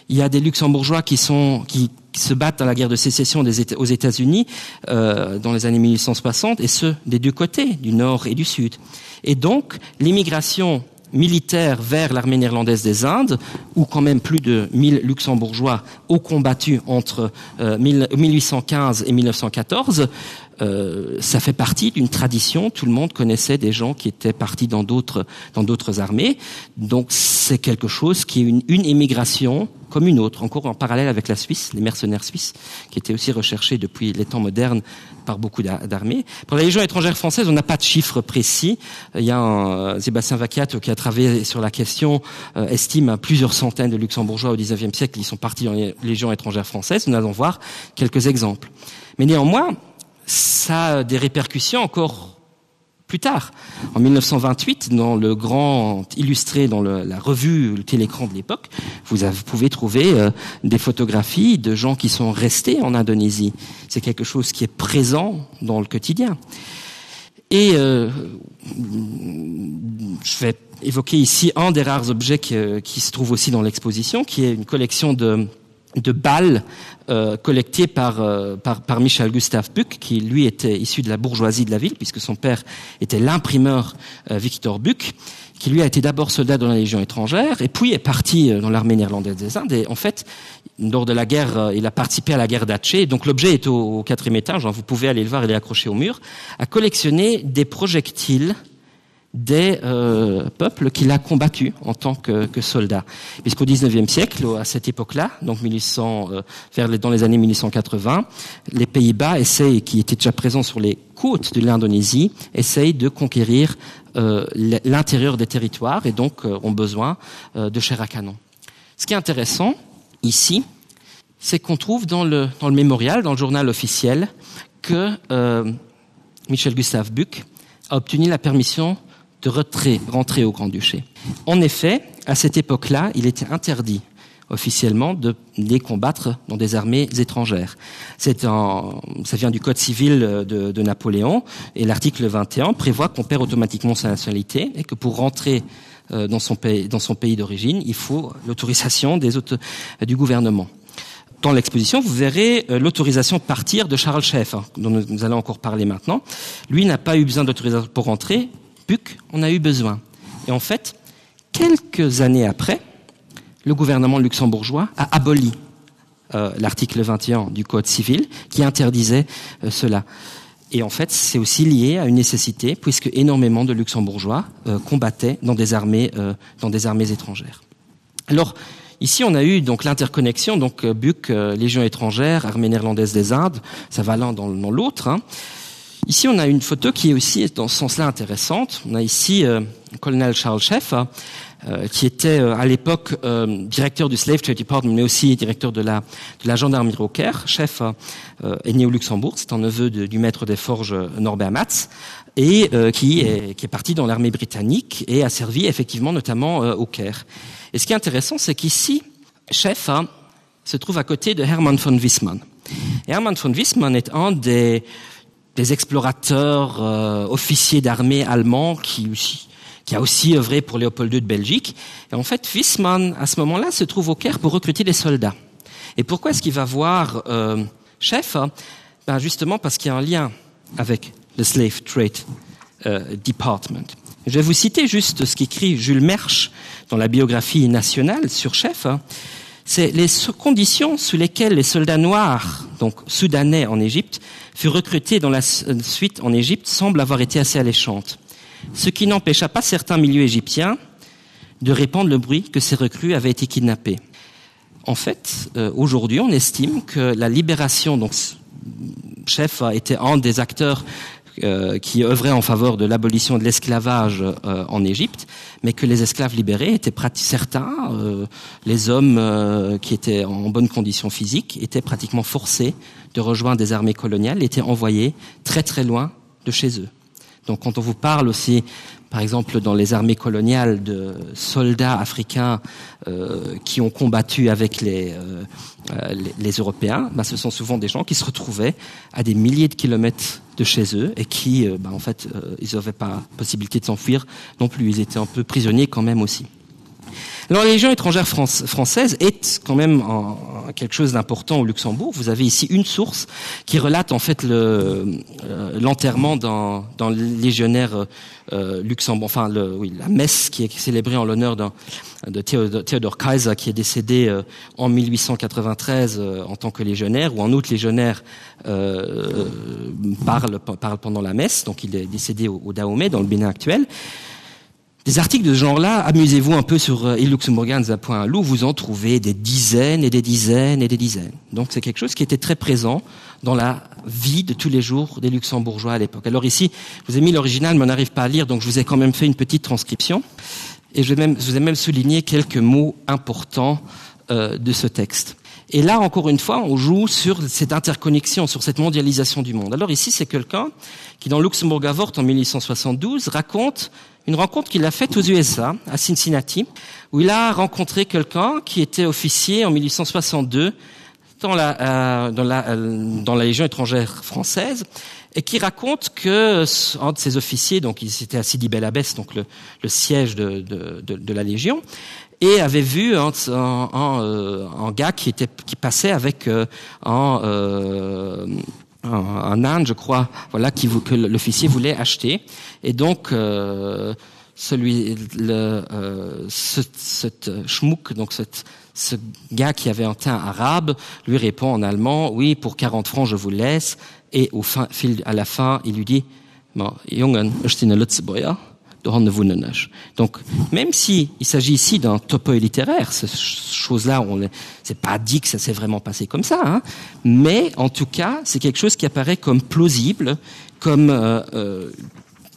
il y a des luxembourgeois qui sont qui, qui se battent dans la guerre de sécession des états aux états unis euh, dans les années 1860 et ceux des deux côtés du nord et du sud et donc l'immigration militaire vers l'armée néerlandaise des indes où quand même plus de 1000 luxembourgeois ont combattu entre euh, 1815 et 1914 euh, ça fait partie d'une tradition tout le monde connaissait des gens qui étaient partis dans d'autres dans d'autres armées donc c'est quelque chose qui est une, une émigration comme une autre encore en parallèle avec la Suisse les mercenaires suisses qui étaient aussi recherchés depuis les temps modernes par beaucoup d'armées pour la légion étrangère française on n'a pas de chiffres précis il y a un, euh, Sébastien Vacat qui a travaillé sur la question euh, estime à plusieurs centaines de luxembourgeois au 19e siècle ils sont partis dans les légions étrangères françaises nous allons voir quelques exemples mais néanmoins ça a des répercussions encore plus tard. En 1928, dans le grand illustré dans le, la revue le télécran de l'époque, vous, avez, vous pouvez trouver euh, des photographies de gens qui sont restés en Indonésie. C'est quelque chose qui est présent dans le quotidien. Et euh, je vais évoquer ici un des rares objets qui, euh, qui se trouve aussi dans l'exposition, qui est une collection de, de balles euh, collectées par, euh, par, par Michel Gustave Buck, qui lui était issu de la bourgeoisie de la ville, puisque son père était l'imprimeur euh, Victor Buck, qui lui a été d'abord soldat dans la Légion étrangère et puis est parti euh, dans l'armée néerlandaise des Indes. Et en fait, lors de la guerre, euh, il a participé à la guerre d'Atché, donc l'objet est au, au quatrième étage, hein, vous pouvez aller le voir, il est accroché au mur, a collectionné des projectiles des euh, peuples qu'il a combattu en tant que, que soldat puisqu'au 19e siècle à cette époque là donc 1800 euh, vers les, dans les années 1880 les pays bas essayent qui étaient déjà présents sur les côtes de l'indonésie essayent de conquérir euh, l'intérieur des territoires et donc euh, ont besoin euh, de chair à canon ce qui est intéressant ici c'est qu'on trouve dans le dans le mémorial dans le journal officiel que euh, michel gustave buc a obtenu la permission de retrait rentrer au grand-duché. En effet, à cette époque-là, il était interdit officiellement de les combattre dans des armées étrangères. C'est un, ça vient du code civil de, de Napoléon et l'article 21 prévoit qu'on perd automatiquement sa nationalité et que pour rentrer euh, dans son pays, dans son pays d'origine, il faut l'autorisation des autres du gouvernement. Dans l'exposition, vous verrez euh, l'autorisation de partir de Charles Schaeffer, dont nous allons encore parler maintenant. Lui n'a pas eu besoin d'autorisation pour rentrer, Buc en a eu besoin. Et en fait, quelques années après, le gouvernement luxembourgeois a aboli euh, l'article 21 du code civil qui interdisait euh, cela. Et en fait, c'est aussi lié à une nécessité puisque énormément de luxembourgeois euh, combattaient dans des armées, euh, dans des armées étrangères. Alors, ici, on a eu donc l'interconnexion, donc euh, Buc, euh, Légion étrangère, armée néerlandaise des Indes, ça va l'un dans, dans l'autre. Ici, on a une photo qui est aussi dans ce sens-là intéressante. On a ici euh, colonel Charles Schaeffer, euh, qui était euh, à l'époque euh, directeur du Slave Trade Department, mais aussi directeur de la, de la gendarmerie au Caire. Schaeffer euh, est né au Luxembourg, c'est un neveu de, du maître des forges euh, Norbert Matz, et euh, qui, est, qui est parti dans l'armée britannique et a servi effectivement notamment euh, au Caire. Et ce qui est intéressant, c'est qu'ici, Schaeffer se trouve à côté de Hermann von Wiesmann. Hermann von Wiesmann est un des, des explorateurs euh, officiers d'armée allemands qui aussi qui a aussi œuvré pour Léopold II de Belgique. Et en fait, Wiesmann, à ce moment-là, se trouve au Caire pour recruter des soldats. Et pourquoi est-ce qu'il va voir euh, chef ben Justement parce qu'il y a un lien avec le Slave Trade euh, Department. Je vais vous citer juste ce qu'écrit Jules Mersch dans la biographie nationale sur chef. C'est les conditions sous lesquelles les soldats noirs, donc soudanais en Égypte, furent recrutés dans la euh, suite en Égypte semblent avoir été assez alléchantes. Ce qui n'empêcha pas certains milieux égyptiens de répandre le bruit que ces recrues avaient été kidnappées. En fait, euh, aujourd'hui, on estime que la libération donc chef a été un des acteurs euh, qui œuvrait en faveur de l'abolition de l'esclavage euh, en Égypte, mais que les esclaves libérés étaient certains, euh, les hommes euh, qui étaient en bonne condition physique étaient pratiquement forcés de rejoindre des armées coloniales, étaient envoyés très très loin de chez eux. Donc quand on vous parle aussi par exemple dans les armées coloniales de soldats africains euh, qui ont combattu avec les, euh, euh, les, les Européens, ben, ce sont souvent des gens qui se retrouvaient à des milliers de kilomètres de chez eux et qui euh, ben, en fait euh, ils n'avaient pas possibilité de s'enfuir non plus ils étaient un peu prisonniers quand même aussi. Alors la Légion étrangère France, française est quand même en, en quelque chose d'important au Luxembourg. Vous avez ici une source qui relate en fait l'enterrement euh, d'un légionnaire euh, Luxembourg enfin le, oui, la messe qui est célébrée en l'honneur de Théodore, Théodore Kaiser qui est décédé euh, en 1893 euh, en tant que légionnaire ou en autre légionnaire euh, parle, parle pendant la messe donc il est décédé au, au Dahomey dans le Bénin actuel. Des articles de ce genre-là, amusez-vous un peu sur euh, illuxembourganza.loup, vous en trouvez des dizaines et des dizaines et des dizaines. Donc c'est quelque chose qui était très présent dans la vie de tous les jours des luxembourgeois à l'époque. Alors ici, je vous ai mis l'original, mais on n'arrive pas à lire, donc je vous ai quand même fait une petite transcription. Et je, vais même, je vous ai même souligné quelques mots importants euh, de ce texte. Et là, encore une fois, on joue sur cette interconnexion, sur cette mondialisation du monde. Alors ici, c'est quelqu'un qui, dans Luxembourg Avort en 1872, raconte une rencontre qu'il a faite aux USA, à Cincinnati, où il a rencontré quelqu'un qui était officier en 1862 dans la, euh, dans la, euh, dans la Légion étrangère française et qui raconte que un de ses officiers, donc il s'était à Sidi Bel Abbès, donc le, le siège de, de, de, de la Légion, et avait vu un, un, un, euh, un gars qui, était, qui passait avec euh, un, euh, un, un âne, je crois, voilà, qui, que l'officier voulait acheter. Et donc, euh, celui, le, euh, ce, cette schmuck, donc cette, ce gars qui avait un teint arabe, lui répond en allemand, oui, pour 40 francs, je vous laisse. Et au fin, fil, à la fin, il lui dit, bon, Jungen, ech sinn e Lëtzebuerger, dohanne wunnen ech. Donc, même si il s'agit ici d'un topo littéraire, cette chose-là, on c'est pas dit que ça s'est vraiment passé comme ça, hein, mais en tout cas, c'est quelque chose qui apparaît comme plausible, comme euh, euh,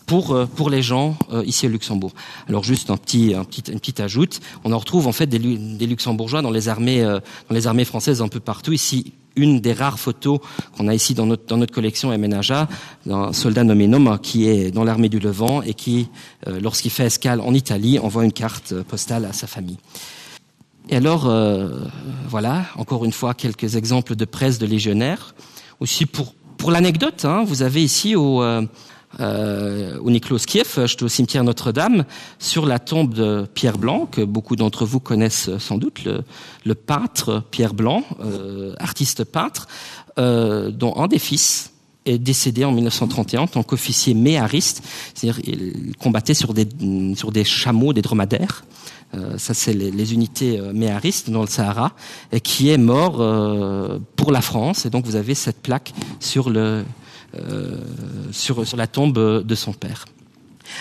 pour, euh, pour les gens euh, ici au Luxembourg. Alors juste un petit, un petit, une petite ajoute, on en retrouve en fait des, des luxembourgeois dans les armées, euh, dans les armées françaises un peu partout ici une des rares photos qu'on a ici dans notre, dans notre collection MNHA d'un soldat nommé Noma qui est dans l'armée du Levant et qui, euh, lorsqu'il fait escale en Italie, envoie une carte euh, postale à sa famille. Et alors, euh, voilà, encore une fois, quelques exemples de presse de légionnaires. Aussi pour, pour l'anecdote, vous avez ici au, euh, euh, au Niklos Kiev, au cimetière Notre-Dame, sur la tombe de Pierre Blanc, que beaucoup d'entre vous connaissent sans doute, le, le peintre Pierre Blanc, euh, artiste peintre, euh, dont un des fils est décédé en 1931 en tant qu'officier méhariste, c'est-à-dire il combattait sur des, sur des chameaux, des dromadaires. Euh, ça c'est les, les unités euh, méharistes dans le Sahara et qui est mort euh, pour la France et donc vous avez cette plaque sur le euh, sur, sur la tombe de son père.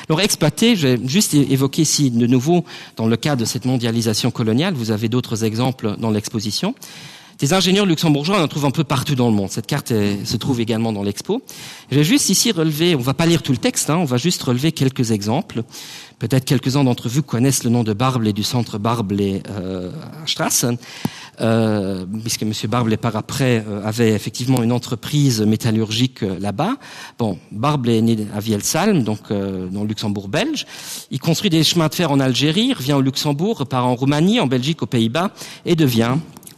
Alors exploité, j'ai juste évoqué ici de nouveau dans le cas de cette mondialisation coloniale, vous avez d'autres exemples dans l'exposition. Des ingénieurs luxembourgeois on en trouve un peu partout dans le monde. Cette carte est, se trouve également dans l'expo. Je vais juste ici relever, on va pas lire tout le texte, hein, on va juste relever quelques exemples. Peut-être quelques-uns d'entre vous connaissent le nom de Barble et du centre Barble et euh, Strassen. Euh, puisque M. Barble par après euh, avait effectivement une entreprise métallurgique euh, là-bas. Bon, Barble est né à Vielsalm, donc euh, dans le Luxembourg belge. Il construit des chemins de fer en Algérie, revient au Luxembourg, repart en Roumanie, en Belgique, aux Pays-Bas et devient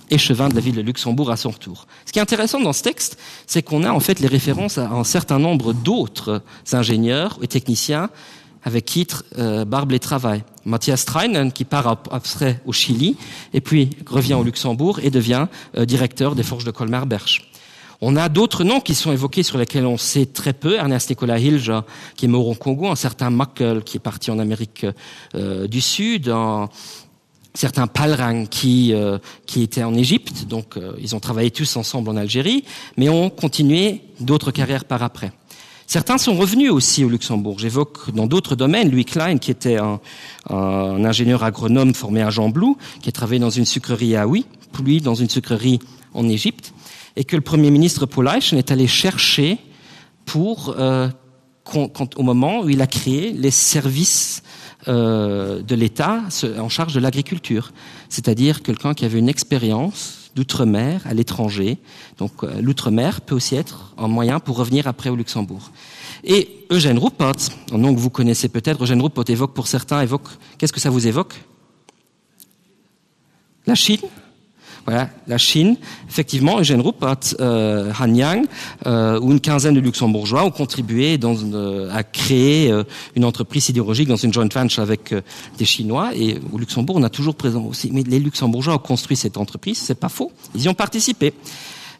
échevin de la ville de Luxembourg à son retour. Ce qui est intéressant dans ce texte, c'est qu'on a en fait les références à un certain nombre d'autres ingénieurs et techniciens avec qui euh, Barbe les travaille. Matthias Treinen qui part après au Chili et puis revient au Luxembourg et devient euh, directeur des forges de Colmar-Berche. On a d'autres noms qui sont évoqués sur lesquels on sait très peu Ernest Nicolas Hilge qui est mort au Congo, un certain Mackel qui est parti en Amérique euh, du Sud, un, certains Palrang qui, euh, qui étaient en Égypte, donc euh, ils ont travaillé tous ensemble en Algérie, mais ont continué d'autres carrières par après. Certains sont revenus aussi au Luxembourg. J'évoque dans d'autres domaines Louis Klein, qui était un, un ingénieur agronome formé à Jean Blou, qui a travaillé dans une sucrerie à Oui, puis dans une sucrerie en Égypte, et que le Premier ministre Paul Eichen est allé chercher pour, euh, quand, au moment où il a créé les services euh, de l'État en charge de l'agriculture, c'est-à-dire quelqu'un qui avait une expérience d'outre-mer à l'étranger. Donc euh, l'outre-mer peut aussi être un moyen pour revenir après au Luxembourg. Et Eugène Ruppert, un nom que vous connaissez peut-être, Eugène Ruppert évoque pour certains évoque qu'est-ce que ça vous évoque La Chine Voilà, la Chine, effectivement, Eugène Ruppert, euh, Han Yang euh, ou une quinzaine de Luxembourgeois ont contribué dans une, euh, à créer euh, une entreprise sidérurgique dans une joint venture avec euh, des Chinois. Et au Luxembourg, on a toujours présent aussi. Mais les Luxembourgeois ont construit cette entreprise, c'est pas faux, ils y ont participé.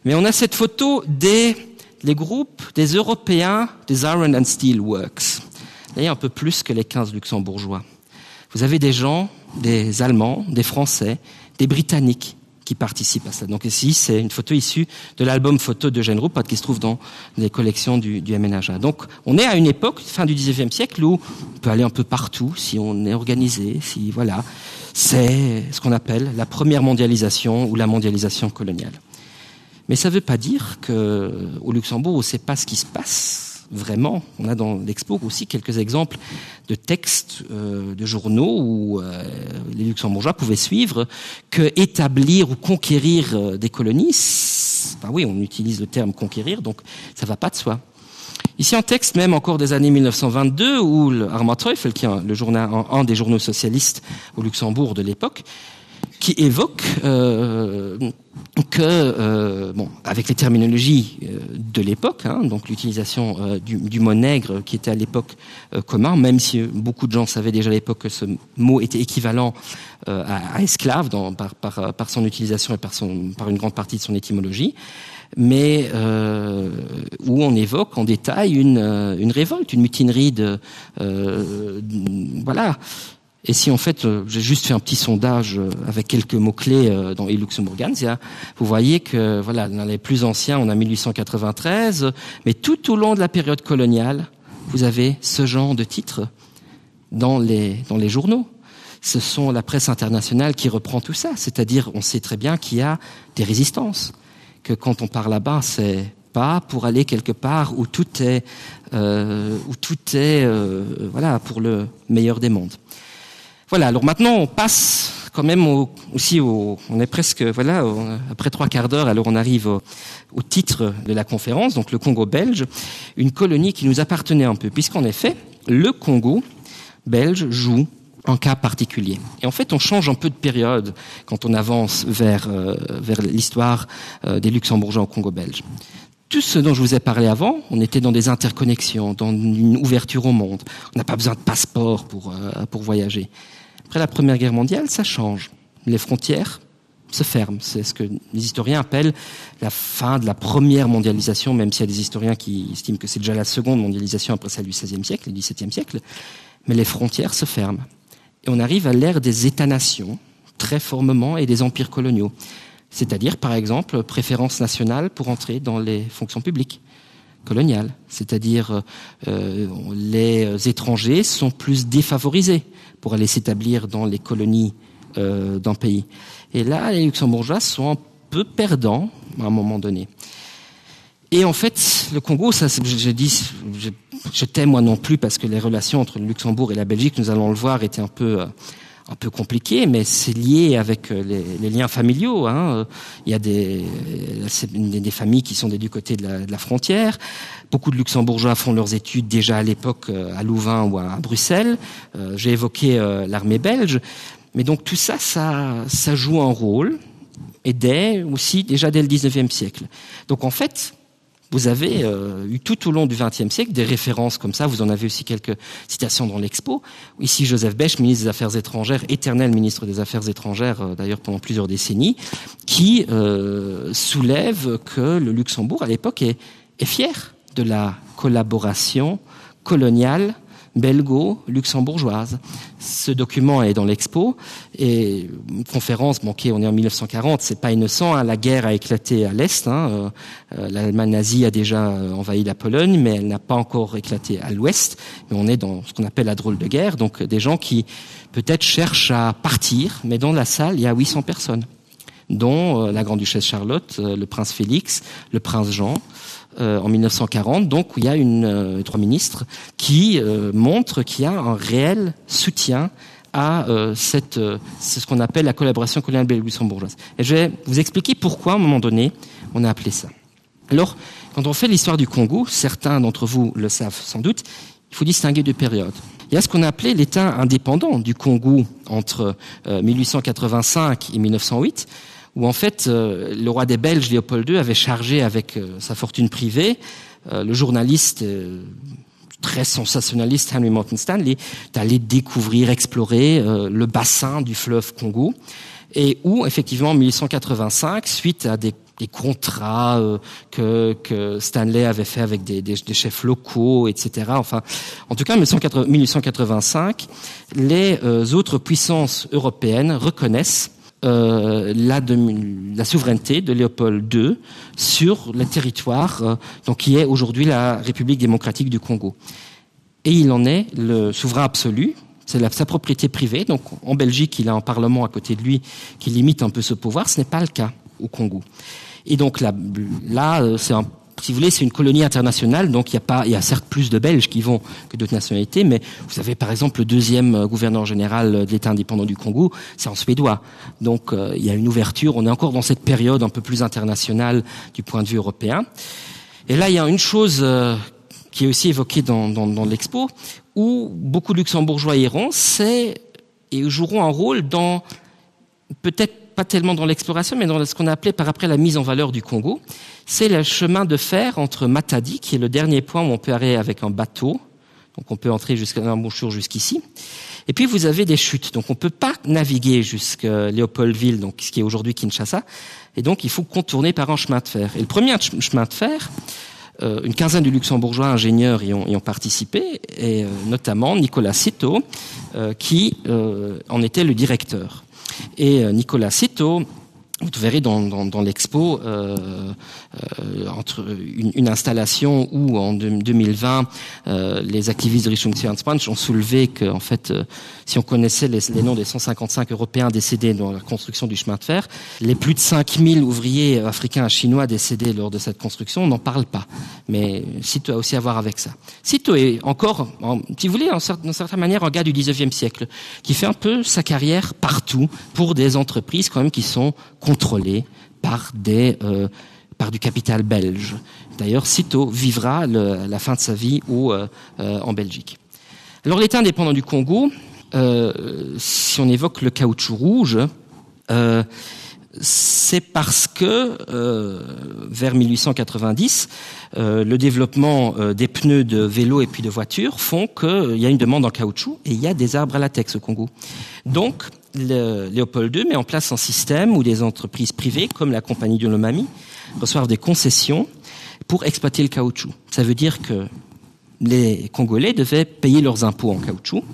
Mais on a cette photo des les groupes des Européens des Iron and Steel Works. D'ailleurs, un peu plus que les 15 Luxembourgeois. Vous avez des gens, des Allemands, des Français, des Britanniques qui participent à ça. Donc ici, c'est une photo issue de l'album photo de Jeanne Ruppert qui se trouve dans les collections du, du MNHA. Donc on est à une époque, fin du 19e siècle, où on peut aller un peu partout si on est organisé, si voilà. C'est ce qu'on appelle la première mondialisation ou la mondialisation coloniale. Mais ça ne veut pas dire qu'au Luxembourg, on ne sait pas ce qui se passe vraiment. On a dans l'expo aussi quelques exemples de textes euh, de journaux où euh, les luxembourgeois pouvaient suivre que établir ou conquérir euh, des colonies ben oui on utilise le terme conquérir donc ça va pas de soi. Ici en texte même encore des années 1922 où le Armand Teufel qui est le journal un des journaux socialistes au Luxembourg de l'époque qui évoque euh, que euh, bon, avec les terminologies euh, de l'époque, donc l'utilisation euh, du, du mot nègre qui était à l'époque euh, commun, même si beaucoup de gens savaient déjà à l'époque que ce mot était équivalent euh, à, à esclave dans, par, par, euh, par son utilisation et par, son, par une grande partie de son étymologie, mais euh, où on évoque en détail une, euh, une révolte, une mutinerie de euh, voilà. Et si en fait euh, j'ai juste fait un petit sondage euh, avec quelques mots clés euh, dans Luxembourgansia, vous voyez que voilà dans les plus anciens on a 1893, mais tout au long de la période coloniale, vous avez ce genre de titres dans les, dans les journaux. Ce sont la presse internationale qui reprend tout ça, c'est-à-dire on sait très bien qu'il y a des résistances, que quand on part là-bas, c'est pas pour aller quelque part où tout est, euh, où tout est euh, voilà, pour le meilleur des mondes. Voilà, alors maintenant on passe quand même au, aussi au, on est presque voilà on, après trois quarts d'heure alors on arrive au, au titre de la conférence donc le Congo belge une colonie qui nous appartenait un peu puisqu'en effet le Congo belge joue un cas particulier et en fait on change un peu de période quand on avance vers euh, vers l'histoire euh, des luxembourgeois au Congo belge tout ce dont je vous ai parlé avant on était dans des interconnexions dans une ouverture au monde on n'a pas besoin de passeport pour euh, pour voyager Après la Première Guerre mondiale, ça change. Les frontières se ferment. C'est ce que les historiens appellent la fin de la première mondialisation, même s'il y a des historiens qui estiment que c'est déjà la seconde mondialisation après celle du XVIe siècle et du XVIIe siècle. Mais les frontières se ferment. Et on arrive à l'ère des États-nations, très formement, et des empires coloniaux. C'est-à-dire, par exemple, préférence nationale pour entrer dans les fonctions publiques coloniales. C'est-à-dire euh, les étrangers sont plus défavorisés pour aller s'établir dans les colonies euh, d'un pays. Et là, les luxembourgeois sont un peu perdant à un moment donné. Et en fait, le Congo, ça, je dis, je, je t'aime moi non plus parce que les relations entre le Luxembourg et la Belgique, nous allons le voir, étaient un peu, euh, un peu compliquées, mais c'est lié avec euh, les, les liens familiaux. Hein. Il y a des, des, des familles qui sont des du côté de la, de la frontière. Beaucoup de Luxembourgeois font leurs études déjà à l'époque euh, à Louvain ou à Bruxelles. J'ai évoqué l'armée belge. Mais donc tout ça, ça, ça joue un rôle et dès aussi déjà dès le 19e siècle. Donc en fait, vous avez euh, eu tout au long du XXe siècle des références comme ça vous en avez aussi quelques citations dans l'expo ici Joseph Bech ministre des affaires étrangères éternel ministre des affaires étrangères euh, d'ailleurs pendant plusieurs décennies qui euh, soulève que le Luxembourg à l'époque est, est fier de la collaboration coloniale belgo-luxembourgeoise. Ce document est dans l'expo et une conférence manquée, on est en 1940, c'est pas innocent, hein, la guerre a éclaté à l'Est, hein, euh, euh, l'Allemagne nazie a déjà euh, envahi la Pologne, mais elle n'a pas encore éclaté à l'Ouest, mais on est dans ce qu'on appelle la drôle de guerre, donc des gens qui peut-être cherchent à partir, mais dans la salle, il y a 800 personnes dont la grande-duchesse Charlotte, le prince Félix, le prince Jean, euh, en 1940 donc où il y a une euh, trois ministres qui euh, montre qu'il y a un réel soutien à euh, cette euh, c'est ce qu'on appelle la collaboration coloniale belgo-luxembourgeoise et je vais vous expliquer pourquoi à un moment donné on a appelé ça alors quand on fait l'histoire du Congo certains d'entre vous le savent sans doute il faut distinguer deux périodes il y a ce qu'on a appelé l'état indépendant du Congo entre euh, 1885 et 1908 où en fait euh, le roi des Belges Léopold II avait chargé avec euh, sa fortune privée euh, le journaliste euh, très sensationnaliste Henry Morton Stanley d'aller découvrir explorer euh, le bassin du fleuve Congo et où effectivement en 1885 suite à des des contrats euh, que, que Stanley avait fait avec des, des, des chefs locaux, etc. Enfin, en tout cas, en 1885, les euh, autres puissances européennes reconnaissent euh, la, de, la souveraineté de Léopold II sur le territoire euh, donc, qui est aujourd'hui la République démocratique du Congo. Et il en est le souverain absolu, c'est sa propriété privée. Donc en Belgique, il a un parlement à côté de lui qui limite un peu ce pouvoir. Ce n'est pas le cas au Congo. Et donc là, là euh, c'est un si vous voulez, c'est une colonie internationale, donc il y a pas, il y a certes plus de Belges qui vont que d'autres nationalités, mais vous avez par exemple le deuxième euh, gouverneur général euh, de l'État indépendant du Congo, c'est en suédois. Donc euh, il y a une ouverture, on est encore dans cette période un peu plus internationale du point de vue européen. Et là, il y a une chose euh, qui est aussi évoquée dans, dans, dans l'expo, où beaucoup de Luxembourgeois iront, c'est et joueront un rôle dans peut-être pas tellement dans l'exploration, mais dans ce qu'on a appelé par après la mise en valeur du Congo. C'est le chemin de fer entre Matadi, qui est le dernier point où on peut aller avec un bateau, donc on peut entrer jusqu'à l'embouchure jusqu'ici. Et puis vous avez des chutes, donc on ne peut pas naviguer jusqu'à Léopoldville, donc ce qui est aujourd'hui Kinshasa, et donc il faut contourner par un chemin de fer. Et le premier chemin de fer, euh, une quinzaine de luxembourgeois ingénieurs y ont, y ont participé, et euh, notamment Nicolas Cito, euh, qui euh, en était le directeur. Et euh, Nicolas Cito, vous verrez dans, dans, dans l'expo euh, euh, entre une, une installation où en 2020 euh, les activistes de Richung ont soulevé que en fait euh, si on connaissait les, les noms des 155 européens décédés dans la construction du chemin de fer les plus de 5000 ouvriers africains chinois décédés lors de cette construction on n'en parle pas mais Cito a aussi à voir avec ça Cito est encore en, si vous voulez en d'une certaine manière un gars du 19e siècle qui fait un peu sa carrière partout pour des entreprises quand même qui sont contrôlées par des euh, par du capital belge. D'ailleurs, sitôt vivra le, la fin de sa vie ou euh, euh, en Belgique. Alors l'État indépendant du Congo, euh, si on évoque le caoutchouc rouge, euh, c'est parce que euh, vers 1890, euh, le développement euh, des pneus de vélo et puis de voitures font qu'il euh, y a une demande en caoutchouc et il y a des arbres à latex au Congo. Donc le, Léopold II met en place un système où des entreprises privées comme la compagnie de l'Omami reçoivent des concessions pour exploiter le caoutchouc. Ça veut dire que les Congolais devaient payer leurs impôts en caoutchouc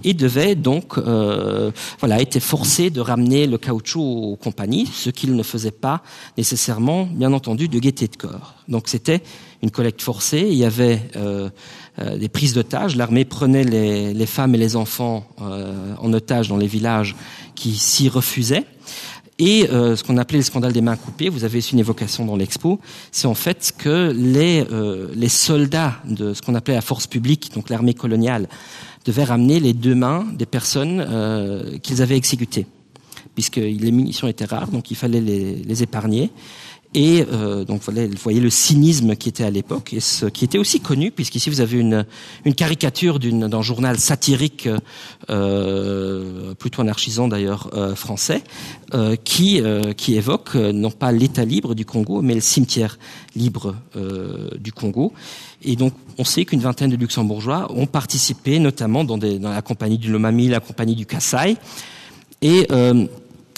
et devaient donc euh, voilà, étaient forcés de ramener le caoutchouc aux compagnies, ce qu'ils ne faisaient pas nécessairement, bien entendu, de gaieté de corps. Donc c'était une collecte forcée, il y avait euh, euh, des prises d'otages, l'armée prenait les, les femmes et les enfants euh, en otage dans les villages qui s'y refusaient. Et euh, ce qu'on appelait le scandale des mains coupées, vous avez une évocation dans l'expo, c'est en fait que les, euh, les soldats de ce qu'on appelait la force publique, donc l'armée coloniale, devaient ramener les deux mains des personnes euh, qu'ils avaient exécutées puisque les munitions étaient rares, donc il fallait les, les épargner. Et euh, donc voilà, vous voyez le cynisme qui était à l'époque et ce qui était aussi connu, puisqu'ici vous avez une, une caricature d'un journal satirique euh, plutôt anarchisant d'ailleurs euh, français, euh, qui, euh, qui évoque euh, non pas l'état libre du Congo, mais le cimetière libre euh, du Congo. Et donc on sait qu'une vingtaine de luxembourgeois ont participé notamment dans, des, dans la compagnie du Lomami, la compagnie du Kassai. Et euh,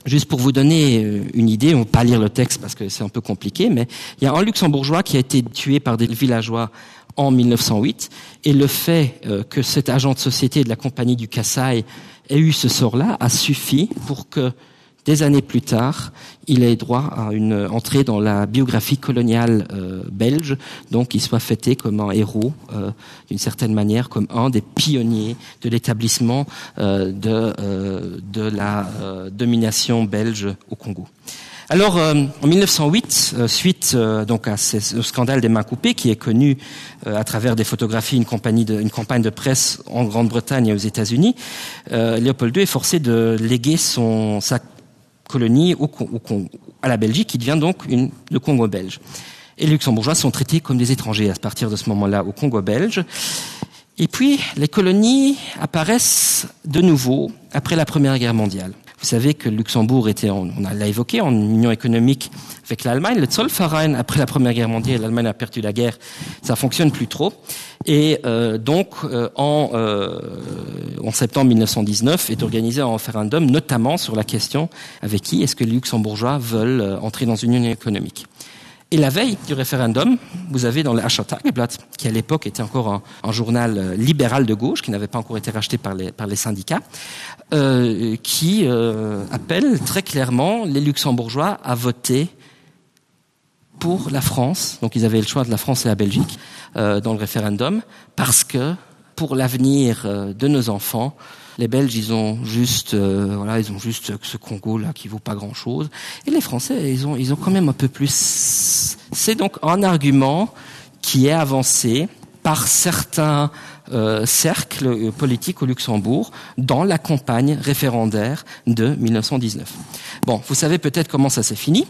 Juste pour vous donner euh, une idée, on va pas lire le texte parce que c'est un peu compliqué, mais il y a un luxembourgeois qui a été tué par des villageois en 1908 et le fait euh, que cet agent de société de la compagnie du Kassai ait eu ce sort-là a suffi pour que des années plus tard, il ait droit à une entrée dans la biographie coloniale euh, belge, donc il soit fêté comme un héros euh, d'une certaine manière, comme un des pionniers de l'établissement euh, de, euh, de la euh, domination belge au Congo. Alors euh, en 1908, euh, suite euh, donc à ce, au scandale des mains coupées qui est connu euh, à travers des photographies, une, compagnie de, une campagne de presse en Grande-Bretagne et aux États-Unis, euh, Léopold II est forcé de léguer son, sa colonie au, au, au, à la Belgique qui devient donc une, le Congo belge. Et les luxembourgeois sont traités comme des étrangers à partir de ce moment-là au Congo belge. Et puis les colonies apparaissent de nouveau après la Première Guerre mondiale. Vous savez que Luxembourg était en, on l'a évoqué en union économique avec l'Allemagne, le Zollverein après la Première Guerre mondiale, l'Allemagne a perdu la guerre, ça fonctionne plus trop. Et euh, donc euh, en, euh, en septembre 1919 est organisé un référendum, notamment sur la question avec qui est-ce que les Luxembourgeois veulent euh, entrer dans une union économique. Et la veille du référendum, vous avez dans le Tageblatt, qui à l'époque était encore un, un journal euh, libéral de gauche, qui n'avait pas encore été racheté par les, par les syndicats, euh, qui euh, appelle très clairement les Luxembourgeois à voter pour la France. Donc ils avaient le choix de la France et la Belgique euh, dans le référendum, parce que pour l'avenir euh, de nos enfants, les Belges ils ont juste euh, voilà ils ont juste ce Congo là qui vaut pas grand chose et les Français ils ont ils ont quand même un peu plus c'est donc un argument qui est avancé par certains euh, cercles euh, politiques au Luxembourg dans la campagne référendaire de 1919 bon vous savez peut-être comment ça s'est fini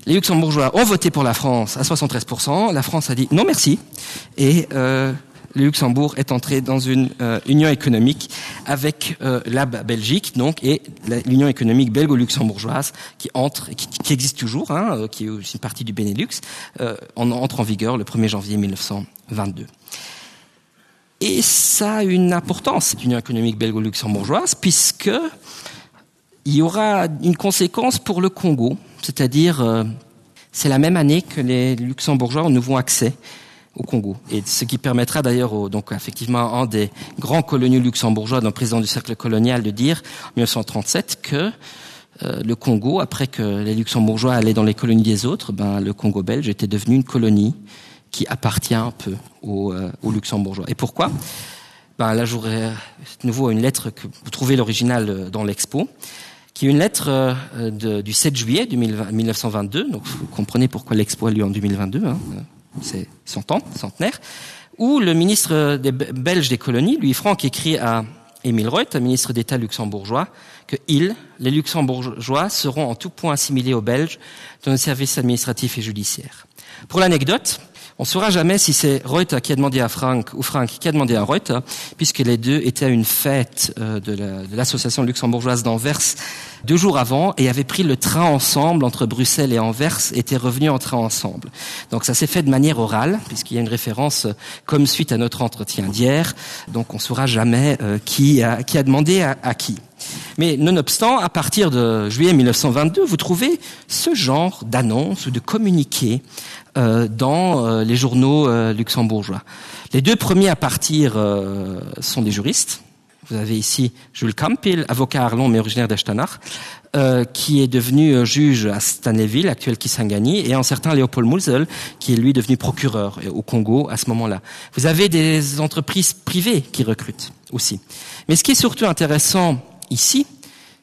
les luxembourgeois ont voté pour la France à 73 la France a dit non merci et euh, le Luxembourg est entré dans une euh, union économique avec euh, la Belgique donc et l'union économique belgo-luxembourgeoise qui entre qui, qui existe toujours hein, euh, qui est aussi une partie du Benelux euh, en entre en vigueur le 1er janvier 1922. Et ça a une importance cette union économique belgo-luxembourgeoise puisque il y aura une conséquence pour le Congo, c'est-à-dire euh, c'est la même année que les luxembourgeois ont nouveau accès au Congo et ce qui permettra d'ailleurs donc effectivement un des grands coloniaux luxembourgeois d'un président du cercle colonial de dire en 1937 que euh, le Congo après que les luxembourgeois allaient dans les colonies des autres ben le Congo belge était devenu une colonie qui appartient un peu aux, euh, aux luxembourgeois et pourquoi ben là j'aurais de nouveau une lettre que vous trouvez l'original euh, dans l'expo qui est une lettre euh, de, du 7 juillet 1922 donc vous comprenez pourquoi l'expo a lieu en 2022 c'est son temps centenaire où le ministre des belges des colonies lui franck écrit à Émile Reuth, ministre d'état luxembourgeois que il les luxembourgeois seront en tout point assimilés aux belges dans le service administratif et judiciaire pour l'anecdote On saura jamais si c'est Reuter qui a demandé à Frank ou Frank qui a demandé à Reuter, puisque les deux étaient à une fête euh, de l'association la, luxembourgeoise d'Anvers deux jours avant et avaient pris le train ensemble entre Bruxelles et Anvers et étaient revenus en train ensemble. Donc ça s'est fait de manière orale, puisqu'il y a une référence euh, comme suite à notre entretien d'hier, donc on saura jamais euh, qui, a, qui a demandé à, à qui. Mais nonobstant, à partir de juillet 1922, vous trouvez ce genre d'annonce ou de communiqué euh, dans euh, les journaux euh, luxembourgeois. Les deux premiers à partir euh, sont des juristes. Vous avez ici Jules Campil, avocat à Arlon mais originaire d'Estanach, euh, qui est devenu euh, juge à Stanleyville, actuel Kisangani, et un certain Léopold Mulzel, qui est lui devenu procureur euh, au Congo à ce moment-là. Vous avez des entreprises privées qui recrutent aussi. Mais ce qui est surtout intéressant ici,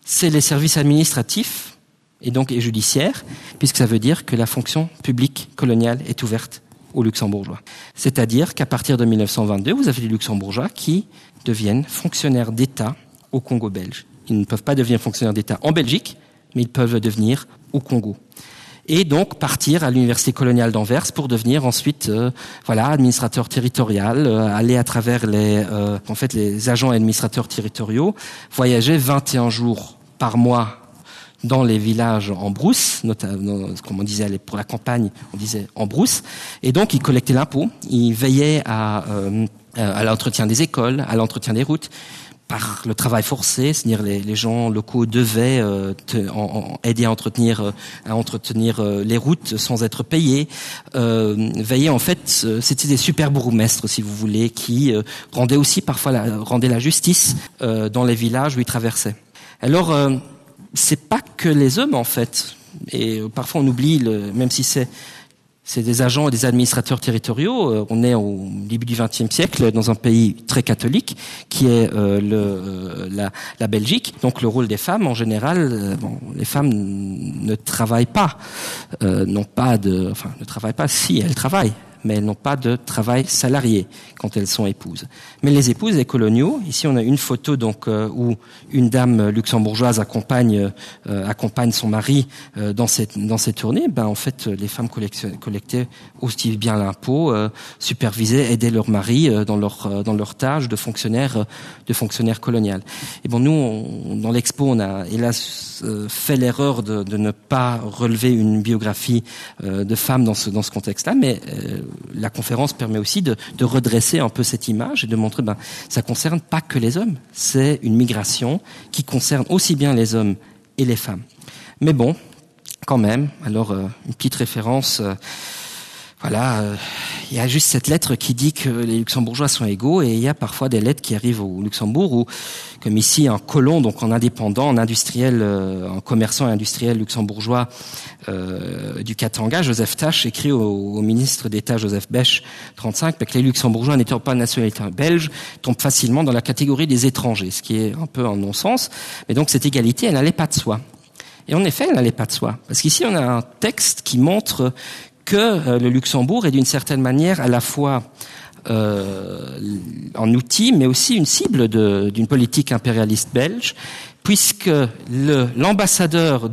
c'est les services administratifs. et donc et judiciaire, puisque ça veut dire que la fonction publique coloniale est ouverte aux luxembourgeois. C'est-à-dire qu'à partir de 1922, vous avez des luxembourgeois qui deviennent fonctionnaires d'État au Congo belge. Ils ne peuvent pas devenir fonctionnaires d'État en Belgique, mais ils peuvent devenir au Congo et donc partir à l'université coloniale d'Anvers pour devenir ensuite euh, voilà administrateur territorial euh, aller à travers les euh, en fait les agents administrateurs territoriaux voyager 21 jours par mois dans les villages en brousse notamment comme on disait pour la campagne on disait en brousse et donc il collectait l'impôt il veillait à euh, à l'entretien des écoles à l'entretien des routes par le travail forcé, c'est-à-dire les, les gens locaux devaient euh, te, en, en, aider à entretenir, euh, à entretenir euh, les routes sans être payés. Euh, veiller en fait, euh, c'était des super bourgmestres, si vous voulez, qui euh, rendaient aussi parfois la, rendaient la justice euh, dans les villages où ils traversaient. Alors, euh, c'est pas que les hommes en fait, et euh, parfois on oublie, le, même si c'est c'est des agents et des administrateurs territoriaux. Euh, on est au début du XXe siècle dans un pays très catholique qui est euh, le, euh, la, la Belgique. Donc le rôle des femmes en général, euh, bon, les femmes ne travaillent pas, euh, n'ont pas de, enfin ne travaillent pas si elles travaillent mais elles n'ont pas de travail salarié quand elles sont épouses. Mais les épouses des coloniaux, ici on a une photo donc euh, où une dame luxembourgeoise accompagne, euh, accompagne son mari euh, dans cette, dans cette tournée, ben, en fait les femmes collectaient aussi bien l'impôt, euh, supervisaient, aidaient leur mari euh, dans leur, euh, dans leur tâche de fonctionnaire, euh, de fonctionnaire colonial. Et bon nous on, dans l'expo on a hélas euh, fait l'erreur de, de ne pas relever une biographie euh, de femmes dans ce, dans ce contexte-là, mais euh, la conférence permet aussi de, de redresser un peu cette image et de montrer ben ça concerne pas que les hommes, c'est une migration qui concerne aussi bien les hommes et les femmes. Mais bon, quand même, alors euh, une petite référence euh, voilà, euh, il y a juste cette lettre qui dit que les luxembourgeois sont égaux et il y a parfois des lettres qui arrivent au Luxembourg où comme ici un colon donc en indépendant en industriel euh, en commerçant industriel luxembourgeois euh, du Katanga Joseph Tache écrit au, au ministre d'État Joseph Bech 35 que les luxembourgeois n'étant pas nationalité belge tombent facilement dans la catégorie des étrangers ce qui est un peu un non-sens mais donc cette égalité elle n'allait pas de soi et en effet elle n'allait pas de soi parce qu'ici on a un texte qui montre que euh, le Luxembourg est d'une certaine manière à la fois euh, en outil mais aussi une cible d'une politique impérialiste belge puisque l'ambassadeur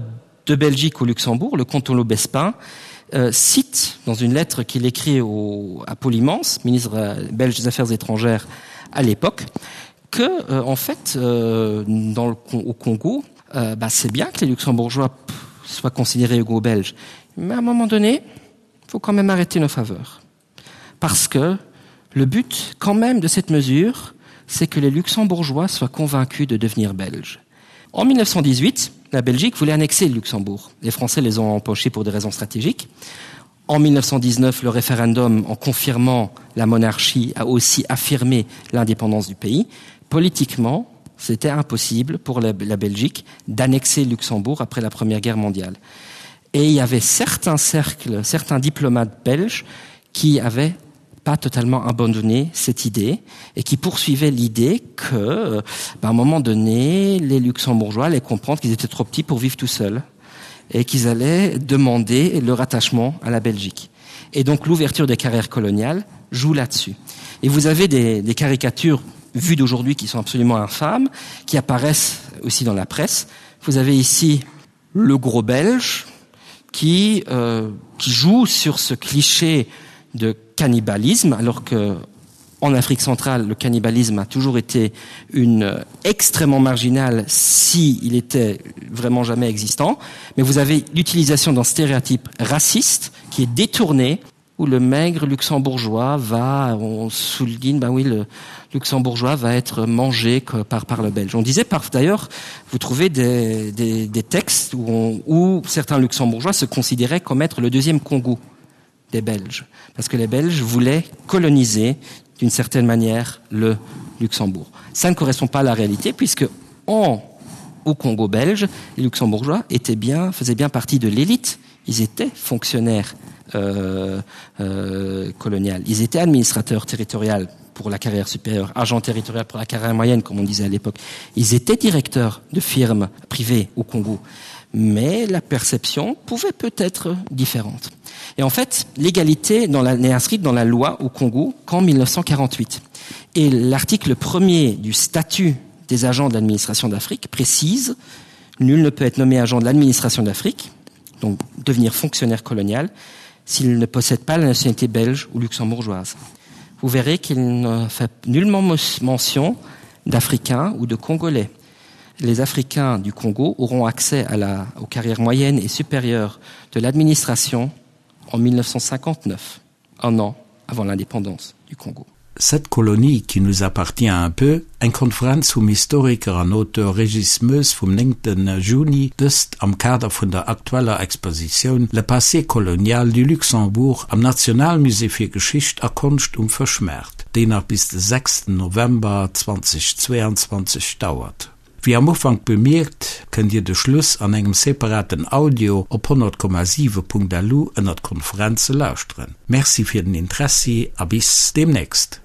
de Belgique au Luxembourg, le comte Lobespin, euh, cite dans une lettre qu'il écrit au, à Paul Immense, ministre euh, belge des Affaires étrangères à l'époque, que euh, en fait euh, dans le, au Congo, euh, c'est bien que les Luxembourgeois soient considérés égaux belges, mais à un moment donné, il faut quand même arrêter nos faveurs. Parce que le but quand même de cette mesure, c'est que les Luxembourgeois soient convaincus de devenir belges. En 1918, la Belgique voulait annexer le Luxembourg. Les Français les ont empochés pour des raisons stratégiques. En 1919, le référendum, en confirmant la monarchie, a aussi affirmé l'indépendance du pays. Politiquement, c'était impossible pour la, la Belgique d'annexer le Luxembourg après la Première Guerre mondiale. Et il y avait certains cercles, certains diplomates belges qui avaient pas totalement abandonné cette idée et qui poursuivaient l'idée que euh, ben, à un moment donné, les Luxembourgeois allaient comprendre qu'ils étaient trop petits pour vivre tout seuls et qu'ils allaient demander leur attachement à la Belgique. Et donc l'ouverture des carrières coloniales joue là-dessus. Et vous avez des, des caricatures vues d'aujourd'hui qui sont absolument infâmes, qui apparaissent aussi dans la presse. Vous avez ici le gros belge qui, euh, qui joue sur ce cliché de cannibalisme, alors que en Afrique centrale, le cannibalisme a toujours été une euh, extrêmement marginale si il était vraiment jamais existant. Mais vous avez l'utilisation d'un stéréotype raciste qui est détourné où le maigre luxembourgeois va on souligne ben oui le luxembourgeois va être mangé que par par le belge on disait par d'ailleurs vous trouvez des, des, des textes où, on, où certains luxembourgeois se considéraient comme être le deuxième congo des belges parce que les belges voulaient coloniser d'une certaine manière le luxembourg ça ne correspond pas à la réalité puisque en au congo belge les luxembourgeois étaient bien faisaient bien partie de l'élite ils étaient fonctionnaires euh, euh, colonial. Ils étaient administrateurs territoriaux pour la carrière supérieure, agents territorial pour la carrière moyenne, comme on disait à l'époque. Ils étaient directeurs de firmes privées au Congo. Mais la perception pouvait peut-être différente. Et en fait, l'égalité n'est inscrite dans la loi au Congo qu'en 1948. Et l'article premier du statut des agents de l'administration d'Afrique précise nul ne peut être nommé agent de l'administration d'Afrique, donc devenir fonctionnaire colonial, s'il ne possède pas la nationalité belge ou luxembourgeoise. Vous verrez qu'il ne fait nullement mention d'Africains ou de Congolais. Les Africains du Congo auront accès à la, aux carrières moyennes et supérieures de l'administration en 1959, un an avant l'indépendance du Congo. Cette colonie qui nous appartient un peu, eng Konferenz vum Historiker an Auteur Régis Moes vum 9 Juni, dëst am Kader vun der aktueller Expositioun Le passé colonial du Luxembourg am Nationalmusée fir Geschicht a Konscht um Fëschmaart, déi nach bis de 6 November 2022 dauert. Wéi am Ufank bemierkt, kënnt Dir de Schluss an engem separaten Audio op 100,7.lu ënnert Konferenze lauschteren. Merci fir den Interessi a bis deemnächst!